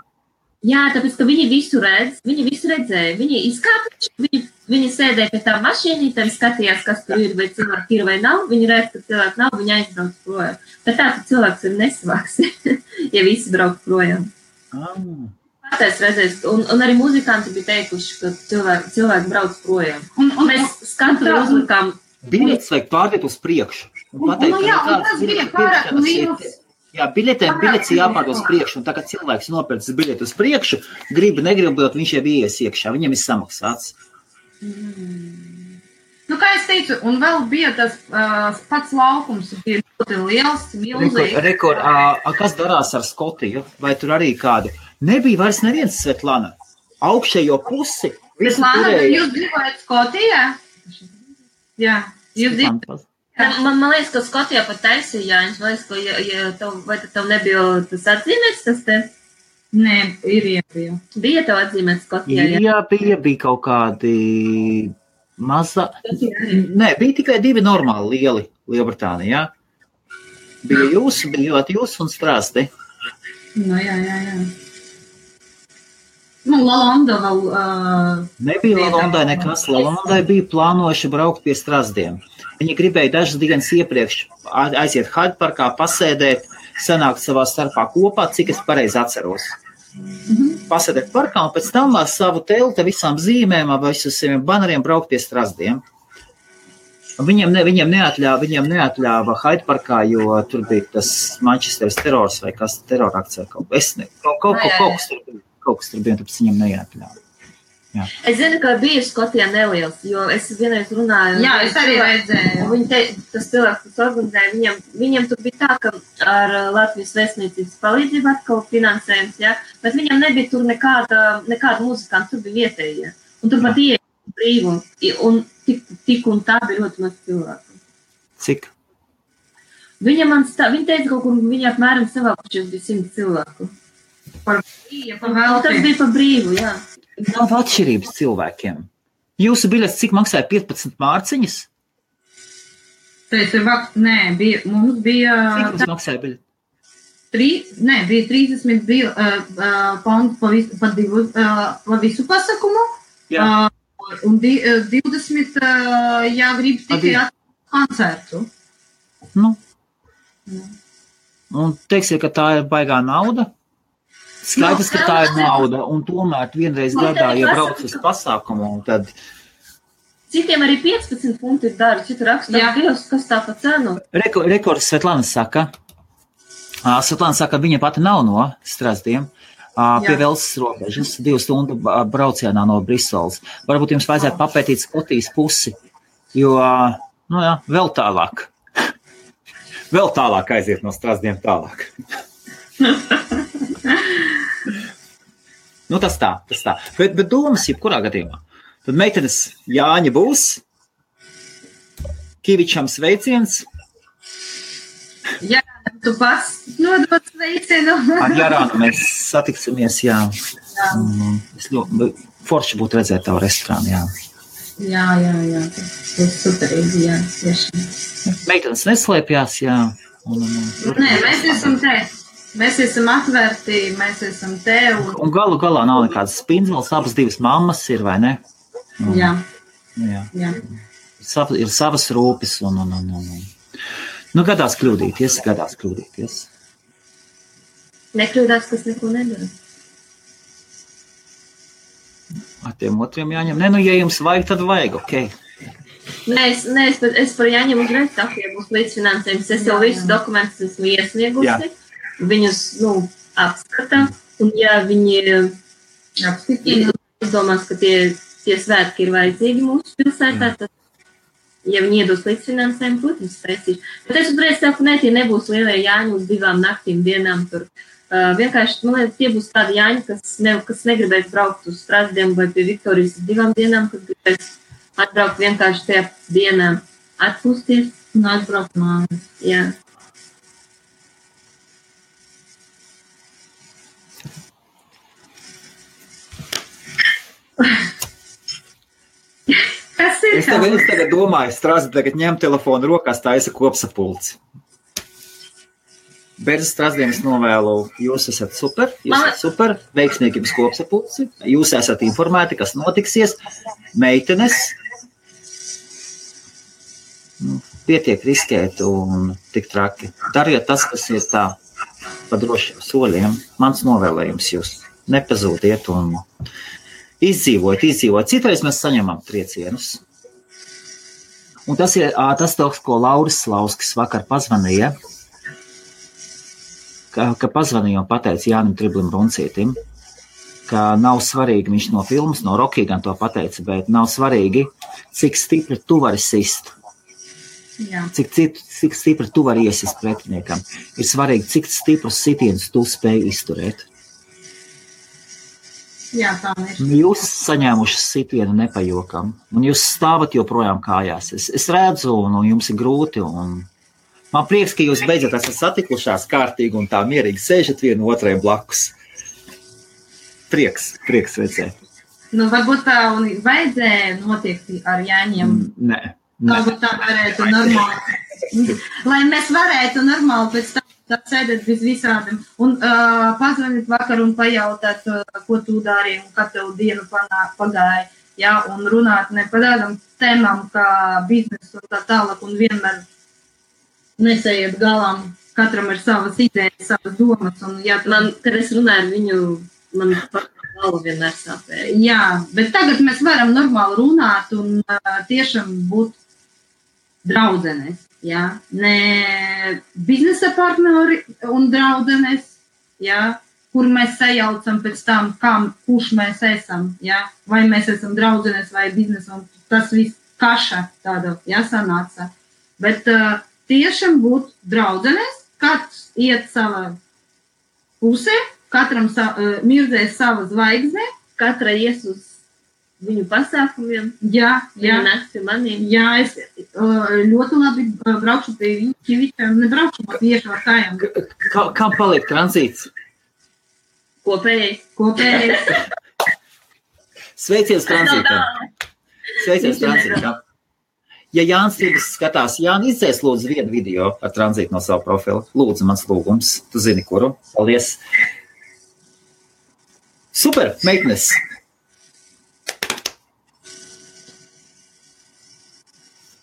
Jā, tāpēc, ka viņi visu redzēja. Viņi izkāpuši, viņi sēdēja pie tā mašīnītēm, skatījās, kas tur ir, vai cilvēki ir vai nav. Viņi redz, ka cilvēki nav, viņi aizbrauc projām. Bet tā, ka cilvēks ir nesvāks, ja visi brauc projām. Es redzēju, un arī muzikanti bija teikuši, ka cilvēki brauc projām. Un mēs skatu uzlikām... Biļetes vajag pārdēt uz priekšu. Tas bija pārāk liels. Jā, biļetes jāpārdod uz priekšu, un tā kā cilvēks nopērcis biļeti uz priekšu, negribot, viņš jau ies iekšā, viņam ir samaksāts. Kā es teicu, un vēl bija tas pats laukums, bija ļoti liels, milzīgs. Kas darās ar Skotiju? Vai tur arī kādu? Nebija vairs neviens Svetlana. Augšējo pusi. Svetlana, jūs dzīvojat Skotijā? Jā, jūs dzīvojat. Man liekas, ka Skotijā pat taisīja Jāņus. Man liekas, vai tev nebija tas atzīmēts, tas te? Nē, ir iepija. Bija tev atzīmēts Skotijā? Jā, bija kaut kādi maza. Nē, bija tikai 2 normāli lieli Lielbritānijā. Bija jūs un Strāsti. Jā. Lalonda vēl... Nebija Lalondai nekas. Lalondai bija plānojuši braukt pie Strasdiem. Viņi gribēja dažas dienas iepriekš aiziet Haidparkā, pasēdēt, sanākt savā starpā kopā, cik es pareizi atceros. Pasēdēt parkā un pēc tam ar savu telti visām zīmēm, visus saviem baneriem braukt pie Strasdiem. Viņiem neatļāva Haidparkā, jo tur bija tas Manchesteras terors vai kas terorakcija kaut kas tur bija, tāpēc viņiem neatļāva. Jā. Es zinu, ka bija Skotijā neliels, jo es vienreiz runāju. Jā, es arī redzēju. Tas cilvēks, kas organizēja, viņiem tur bija tā, ka ar Latvijas vēstniecības palīdzību atkal finansējums, jā, bet viņam nebija tur nekāda muzikanta, tur bija vietējie. Un tur pat ieeja brīvi, un tik un tā bija ļoti maz cilvēku. Cik? Viņa teica kaut kur, viņa apmēram savākušies bija 100 cilvēku. Tas bija par brīvu, jā. Nav atšķirības cilvēkiem. Jūsu biļets cik maksāja 15 mārciņas? Mums bija... Cik maksāja biļeti? Bija 30 pounds pa visu pasakumu. Jā. Un 20, ja grib tikai koncertu. Un teiksim, ka tā ir baigā nauda? Skaidrs, ka tā ir nauda, un tomēr vienreiz gadā, ja brauc uz pasākumu, tad... Citiem arī 15 funti ir dārgi, citu rakstā Dievs, kas tā pa cenu? Rekords Svetlana saka, viņa pati nav no Strazdiem, pie Velsas robežas, 2 stundu braucienā no Briseles. Varbūt jums vajadzētu papētīt Skotijas pusi, jo, vēl tālāk. Vēl tālāk aiziet no Strazdiem tālāk. Tas tā. Bet domas jebkurā gadījumā. Tad meitenes Jāņa būs, Kivičam sveiciens. Jā, tu pats nodot sveicienu. Ar Jarānu mēs satiksimies, jā. Es ļoti forši būtu redzēt tavu restorānu, jā. Jā, tas superīgi, jā, tiešām. Meitenes neslēpjās, jā. Nē, mēs esam atvērti, mēs esam te. Un galu galā nav nekādas spindzeles, abas 2 mammas ir, vai ne? Jā. Ir savas rūpes un. Gadās kļūdīties. Nekļūdās, kas neko nedara. Ar tiem otriem jāņem. Ja jums vajag, tad vajag, ok. Nē, es par Jāņem uzreiz tā, ja būs līdzfinansējums. Es jau visu dokumentus esmu iesniegusi. Viņus, apskatā. Un ja viņi izdomās, ka tie svētki ir vajadzīgi mūsu pilsētā, tad, ja viņi iedos līdzfinansējumu, protams, spēcīšu. Bet es uzreiz saku, tie nebūs lielie Jāņi uz 2 naktīm dienām tur. Vienkārši, man liekas, tie būs tādi Jāņi, kas negribēs braukt uz Strazdiem vai pie Viktorijas uz 2 dienām, kas gribēs atbraukt vienkārši tajā dienā, atpūsties un atbraukt mājās. Jā. Es tagad domāju, Strazdi tagad ņem telefonu rokās, taisa kopsapulci. Bez Strazdiem es novēlu, jūs esat super, veiksmīgi jums kopsapulci, jūs esat informēti, kas notiksies, meitenes, pietiek riskēt un tik traki. Dariet tas, kas ir tā pa drošiem soļiem, mans novēlējums jūs nepazūdiet un izdzīvot. Citreiz mēs saņemam triecienus. Un tas ir tas, ko Lauris Slauskis vakar pazvanīja, ka pazvanīja un pateica Jānim Triblim Runcītim, ka nav svarīgi, viņš no filmas, no Rocky gan to pateica, bet nav svarīgi, cik stipri tu vari sist. Jā. Cik stipri tu vari iesist pretiniekam. Ir svarīgi, cik stiprus sitienus tu spēj izturēt. Jā, tā ir. Jūs saņēmuši sitienu nepajokam, un jūs stāvat joprojām kājās. Es redzu, un jums ir grūti, un man prieks, ka jūs beidzot esat satikušās kārtīgi un tā mierīgi sēžat vienu otriem blakus. Prieks redzēt. Varbūt tā un vajadzēja notiekt ar Jāņiem. Nē. Varbūt tā varētu normāli. Lai mēs varētu normāli pēc tam tā sēdēt bez visādiem un pazvanīt vakar un pajautāt, ko tu dari un kā tev dienu pagāja, jā, un runāt ne par tādām tēmām kā biznesu un tā tālāk un vienmēr nesējiet galām, katram ir savas idejas, savas domas un jā, kad es runāju ar viņu, man galva vienmēr sāpēja. Jā, bet tagad mēs varam normāli runāt un tiešām būt draudzenes. Jā, ne biznesa partneri un draudzenes, jā, kur mēs sajaucam pēc tam, kurš mēs esam, jā, vai mēs esam draudzenes vai biznesa, un tas viss kaša tāda, jā, sanāca. Bet tiešām būt draudzenes, katrs iet savā pusē, katram mirzēs sava zvaigzne, katra ies uz viņu pasākumiem. Jā. Nāks pie maniem. Jā, es ļoti labi braukšu pie Kivičiem, nebraukšu tieši ar kājām. Kam paliek tranzīts? Kopējais. Sveiciens tranzītam. Ja Jānis Tīgas skatās, Jāni, izdzēs lūdzu vienu video ar tranzītu no savu profilu. Lūdzu, mans lūgums. Tu zini, kuru. Paldies. Super, meitenes.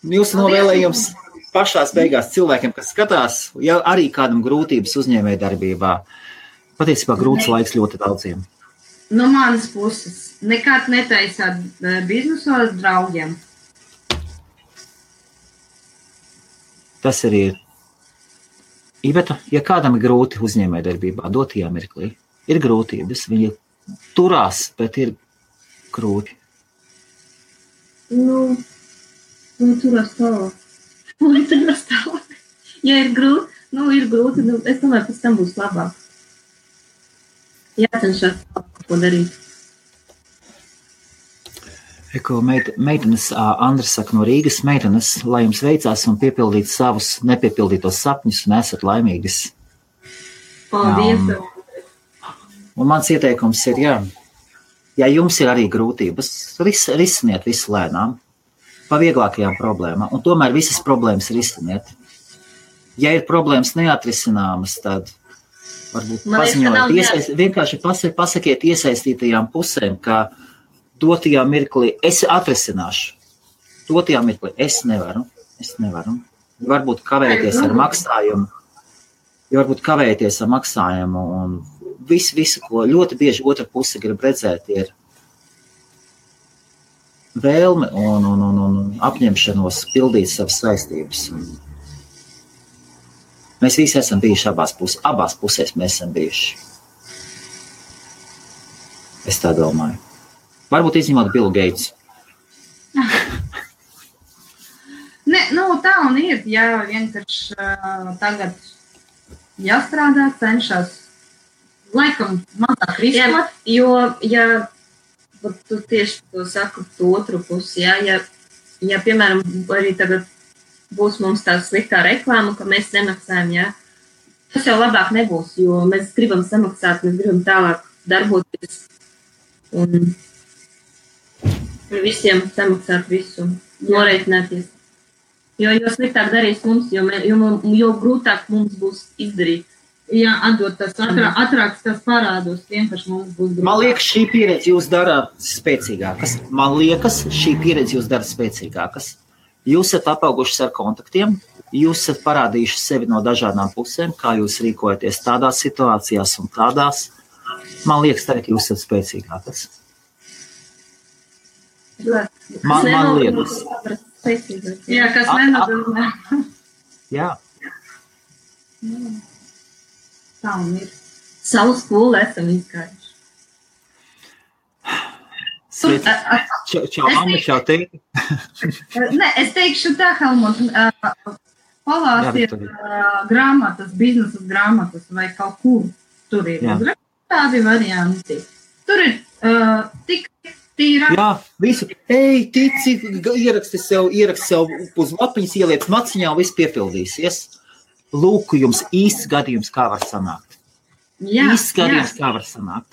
Jūsu novēlējums pašās beigās cilvēkiem, kas skatās, ja arī kādam grūtības uzņēmējdarbībā, Patiesībā grūts laiks ļoti daudziem. No manas puses, nekad netaisāt biznesu ar draugiem. Tas arī ir. Iveta, ja kādam ir grūti uzņēmējdarbībā, dotajā mirklī, ir grūtības, viņi turās, bet ir grūti. Turās tālāk. Ja ir grūti, es domāju, pēc tam būs labāk. Jācenšas ko darīt. Meitenes, Andris saka no Rīgas, meitenes, lai jums veicās un piepildīt savus nepiepildītos sapņus un esat laimīgas. Paldies. Un mans ieteikums ir, ja jums ir arī grūtības, risiniet visu lēnām, pa vieglākajām problēmām, un tomēr visas problēmas risiniet. Ja ir problēmas neatrisināmas, tad varbūt paziņojiet, vienkārši pasakiet iesaistītajām pusēm, ka dotajā mirklī es atrisināšu. Dotajā mirklī es nevaru. Varbūt kavēties ar maksājumu. Un visu, ko ļoti bieži otra puse grib redzēt, ir vēlme un apņemšanos pildīt savas saistības. Mēs visi esam bijuši abās pusēs mēs esam bijuši. Es tā domāju. Varbūt izņemot Billu Gates. Tā un ir, vienkārši tagad jāstrādā, cenšas laikam mazāk riskot. Tu tieši to saku tu otru pusi, ja, piemēram, arī tagad būs mums tā sliktā reklāma, ka mēs nemaksājam, tas jau labāk nebūs, jo mēs gribam samaksāt, mēs gribam tālāk darboties un visiem samaksāt visu, norēķināties. Jo sliktāk darīs mums, jo grūtāk mums būs izdarīt. Jā, atdot tas atrāks tas parādos, vienkārši mums būs grūtāk. Man liekas, šī pieredze jūs dara spēcīgākas. Jūs esat apaugušas ar kontaktiem, jūs esat parādījuši sevi no dažādām pusēm, kā jūs rīkojaties tādās situācijās un tādās. Man liekas, tagad jūs esat spēcīgākas. Man liekas. Jā, kas nenozīmē. Jā. Tā un ir. Savu skolu esam izgājuši. Čau, mamma, čau, tevi. Es teikšu tā, Helmut, palāstiet grāmatas, biznesas grāmatas vai kaut kur. Tur ir tādi varianti. Tur ir tik tīrā. Jā, visu. Ej, tici, ieraksti sev uz lapiņas, ieliec maciņā, viss piepildīsies. Lūk, jums īsts gadījums, kā var sanākt. Kā var sanākt.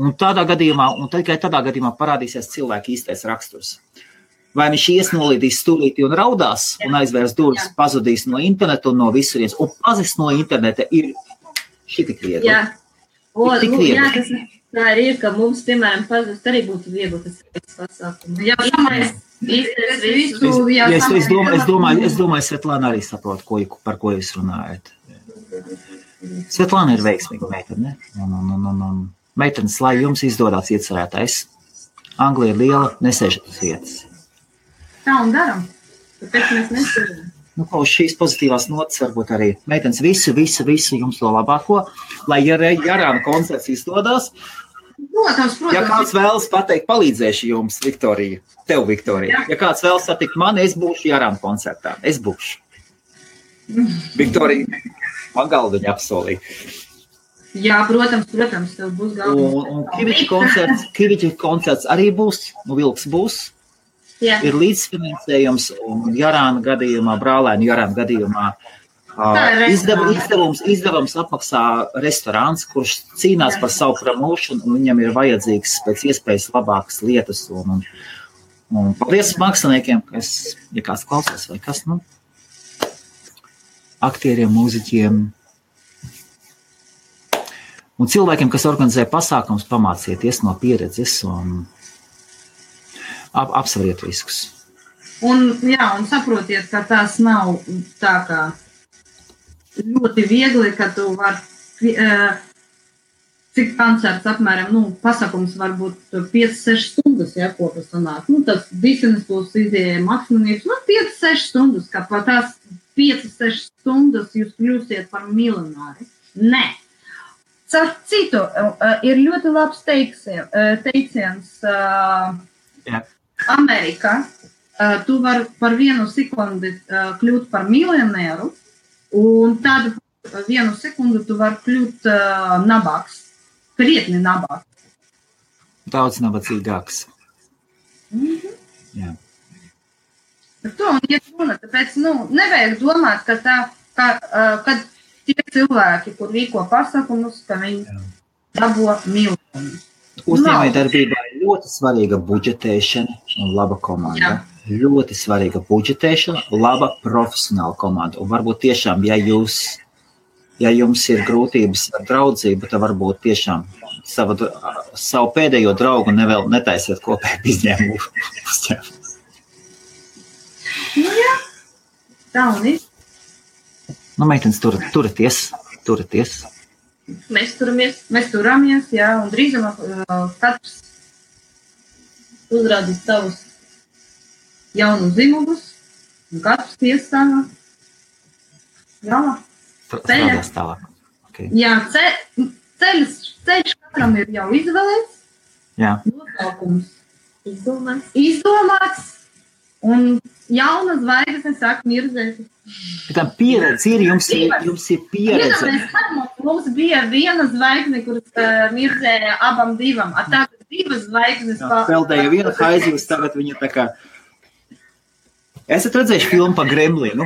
Un tikai tādā gadījumā parādīsies cilvēka īstais raksturs. Vai viņš iesnolīdīs stūrīti un raudās un aizvērs durvis, pazudīs no interneta un no visurienes. Un pazis no interneta ir šitik viegli. Tas tā ir, ka mums, piemēram, pazust arī būtu viegli tas pasākums. Es domāju, Svetlāna arī saprot, par ko jūs runājat. Svetlāna ir veiksmīga meitene. Meitenes, lai jums izdodās iecerētais. Anglija ir liela, nesēžat uz vietas. Tā un daram. Tāpēc mēs nesēžam. Uz šīs pozitīvās notas varbūt arī meitenes visu jums to labāko, lai Jarāna koncerts izdodās. Protams. Ja kāds vēlas pateikt, palīdzēšu jums, Viktorija, tev, Viktorija. Ja kāds vēlas satikt mani, es būšu Jarāna koncertā. Es būšu. Viktorija, man galdiņa apsolīja. Jā, protams, tev būs galdiņa. Un Kiviča koncerts arī būs, Vilks būs. Jā. Ir līdzfinansējums un Jarāna gadījumā, brālēnu Jarāna gadījumā izdevums apmaksā restorāns, kurš cīnās par savu promošanu un viņam ir vajadzīgs pēc iespējas labākas lietas. Un paldies māksliniekiem, ja kāds klausās vai kas, aktieriem, mūziķiem un cilvēkiem, kas organizē pasākums, pamācieties no pieredzes un apsveriet riskus. Un saprotiet, ka tās nav tā kā ļoti viegli, ka tu vari cik koncerts apmēram, pasakums varbūt 5-6 stundas, ja, ko tas sanāk. Tas bisenes būs izējai maksimums, 5-6 stundas, kā pa tās 5-6 stundas jūs kļūsiet par miljonāri. Nē. Caur citu, ir ļoti labs teiciens Amerikā. Tu vari par 1 sekundi kļūt par miljonēru, un tad 1 sekundi tu vari kļūt nabāks. Krietni nabāks. Daudz nabadzīgāks. Jā. Par to un iet runa, tāpēc, nevajag domāt, kad tie cilvēki, kur rīko pasakumus, ka viņi dabo miljonus. Uzņēmējdarbībā ir ļoti svarīga budžetēšana un laba komanda. Jā. Ļoti svarīga budžetēšana, laba profesionāla komanda. Un varbūt tiešām, ja jums ir grūtības ar draudzību, tad varbūt tiešām savu pēdējo draugu netaisiet kopēju izņēmumu. Jā, tā un ir. Meitenes, turaties. Mēs turamies, jā, un drīzumā katrs uzrādīs savus jaunus zimugus, un katrs iestāvā galā. Strādās tālāk. Okay. Jā, ceļš katram ir jau izvēlēts. Jā. Nosaukums izdomāts. Un jauna zvaigzne sāk mirzēt. Tā pieredze ir, jums ir pieredze. Mums bija viena zvaigzne, kuras mirzēja abam divam. Tagad 2 zvaigznes. Peldēja viena haizivs, tagad viņa tā kā... Esat redzējuši filmu par Gremlinu?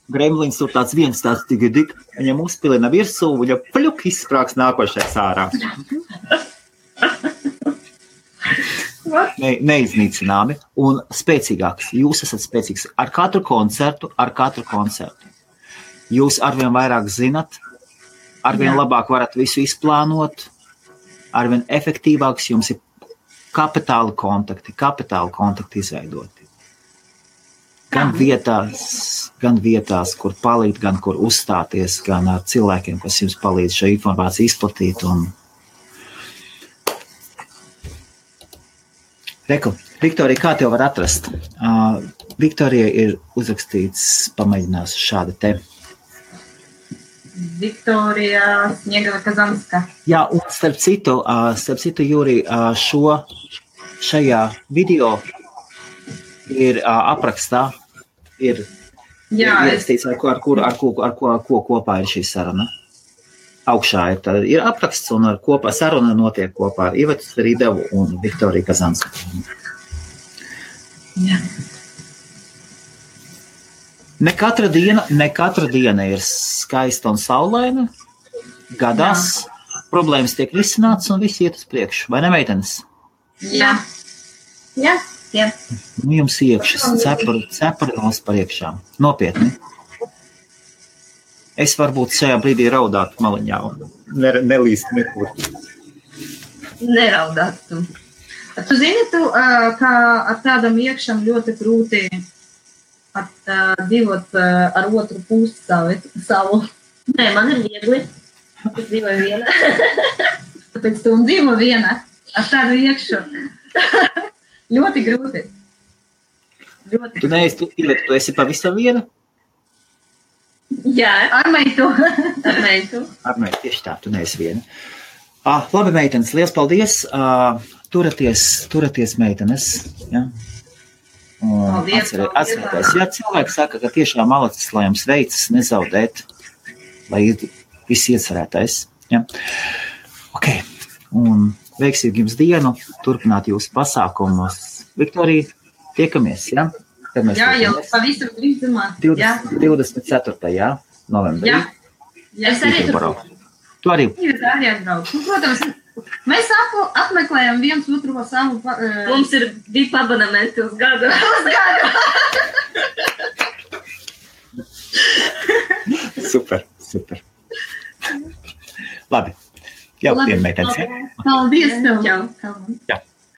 Gremlins tur tāds viens tāds tig, viņam uzpilina virsū, viņa pļuk izsprāks nākošais ārā. Neiznīcināmi un spēcīgāks. Jūs esat spēcīgs ar katru koncertu. Jūs arvien vairāk zinat, arvien labāk varat visu izplānot, arvien efektīvāks jums ir kapitāli kontakti izveidoti. Gan vietās, kur palīdz, gan kur uzstāties, gan ar cilvēkiem, kas jums palīdz šo informāciju izplatīt. Reku, Viktorija, kā tev var atrast? Viktorija ir uzrakstīts, pamēģinās šāda te. Viktorija Sniegava Kazanska. Jā, un starp citu, Jūri, šajā video ir aprakstā, ir ierakstīts, ar ko kopā ir šī saruna. Augšā ir apraksts un saruna notiek kopā ar Ivetu Rīdevu un Viktoriju Kazansku. Jā. Ne katra diena ir skaista un saulaina. Gadās problēmas tiek risināts un viss iet uz priekšu. Vai ne, meitenes? Jā. Jums iekšas cepurinos par iekšām. Nopietni. Es varbūt šajā brīdī raudātu maliņā un nelīstu nekur. Neraudātu. Tu zini, ka ar tādam iekšam ļoti grūti dzīvot ar otru pusi savu. Nē, man ir viegli. Es dzīvoju viena. Tāpēc tu dzīvo viena ar tādu iekšu. Ļoti grūti. Tu esi pavisam viena? Jā, ar meitu. Tieši tā, tu neesi viena. Labi, meitenes, liels paldies. Turaties meitenes. Ja? Atcerieties, ja cilvēki saka, ka tiešām malacis, lai jums veicas, nezaudēt, lai viss iecerētais. Ja? Ok, un veiksīgi jums dienu, turpināt jūsu pasākumus. Viktorija, tiekamies, ja? Jā, jau pavisam drīzumā. 24. novembrī. Jā, es arī tur. Tu arī. Protams, mēs apmeklējam viens otru savu. Mums ir 2 abonementi uz gadu. Super. Labi. Jau, meitenes. Paldies tev. Čau. Jā.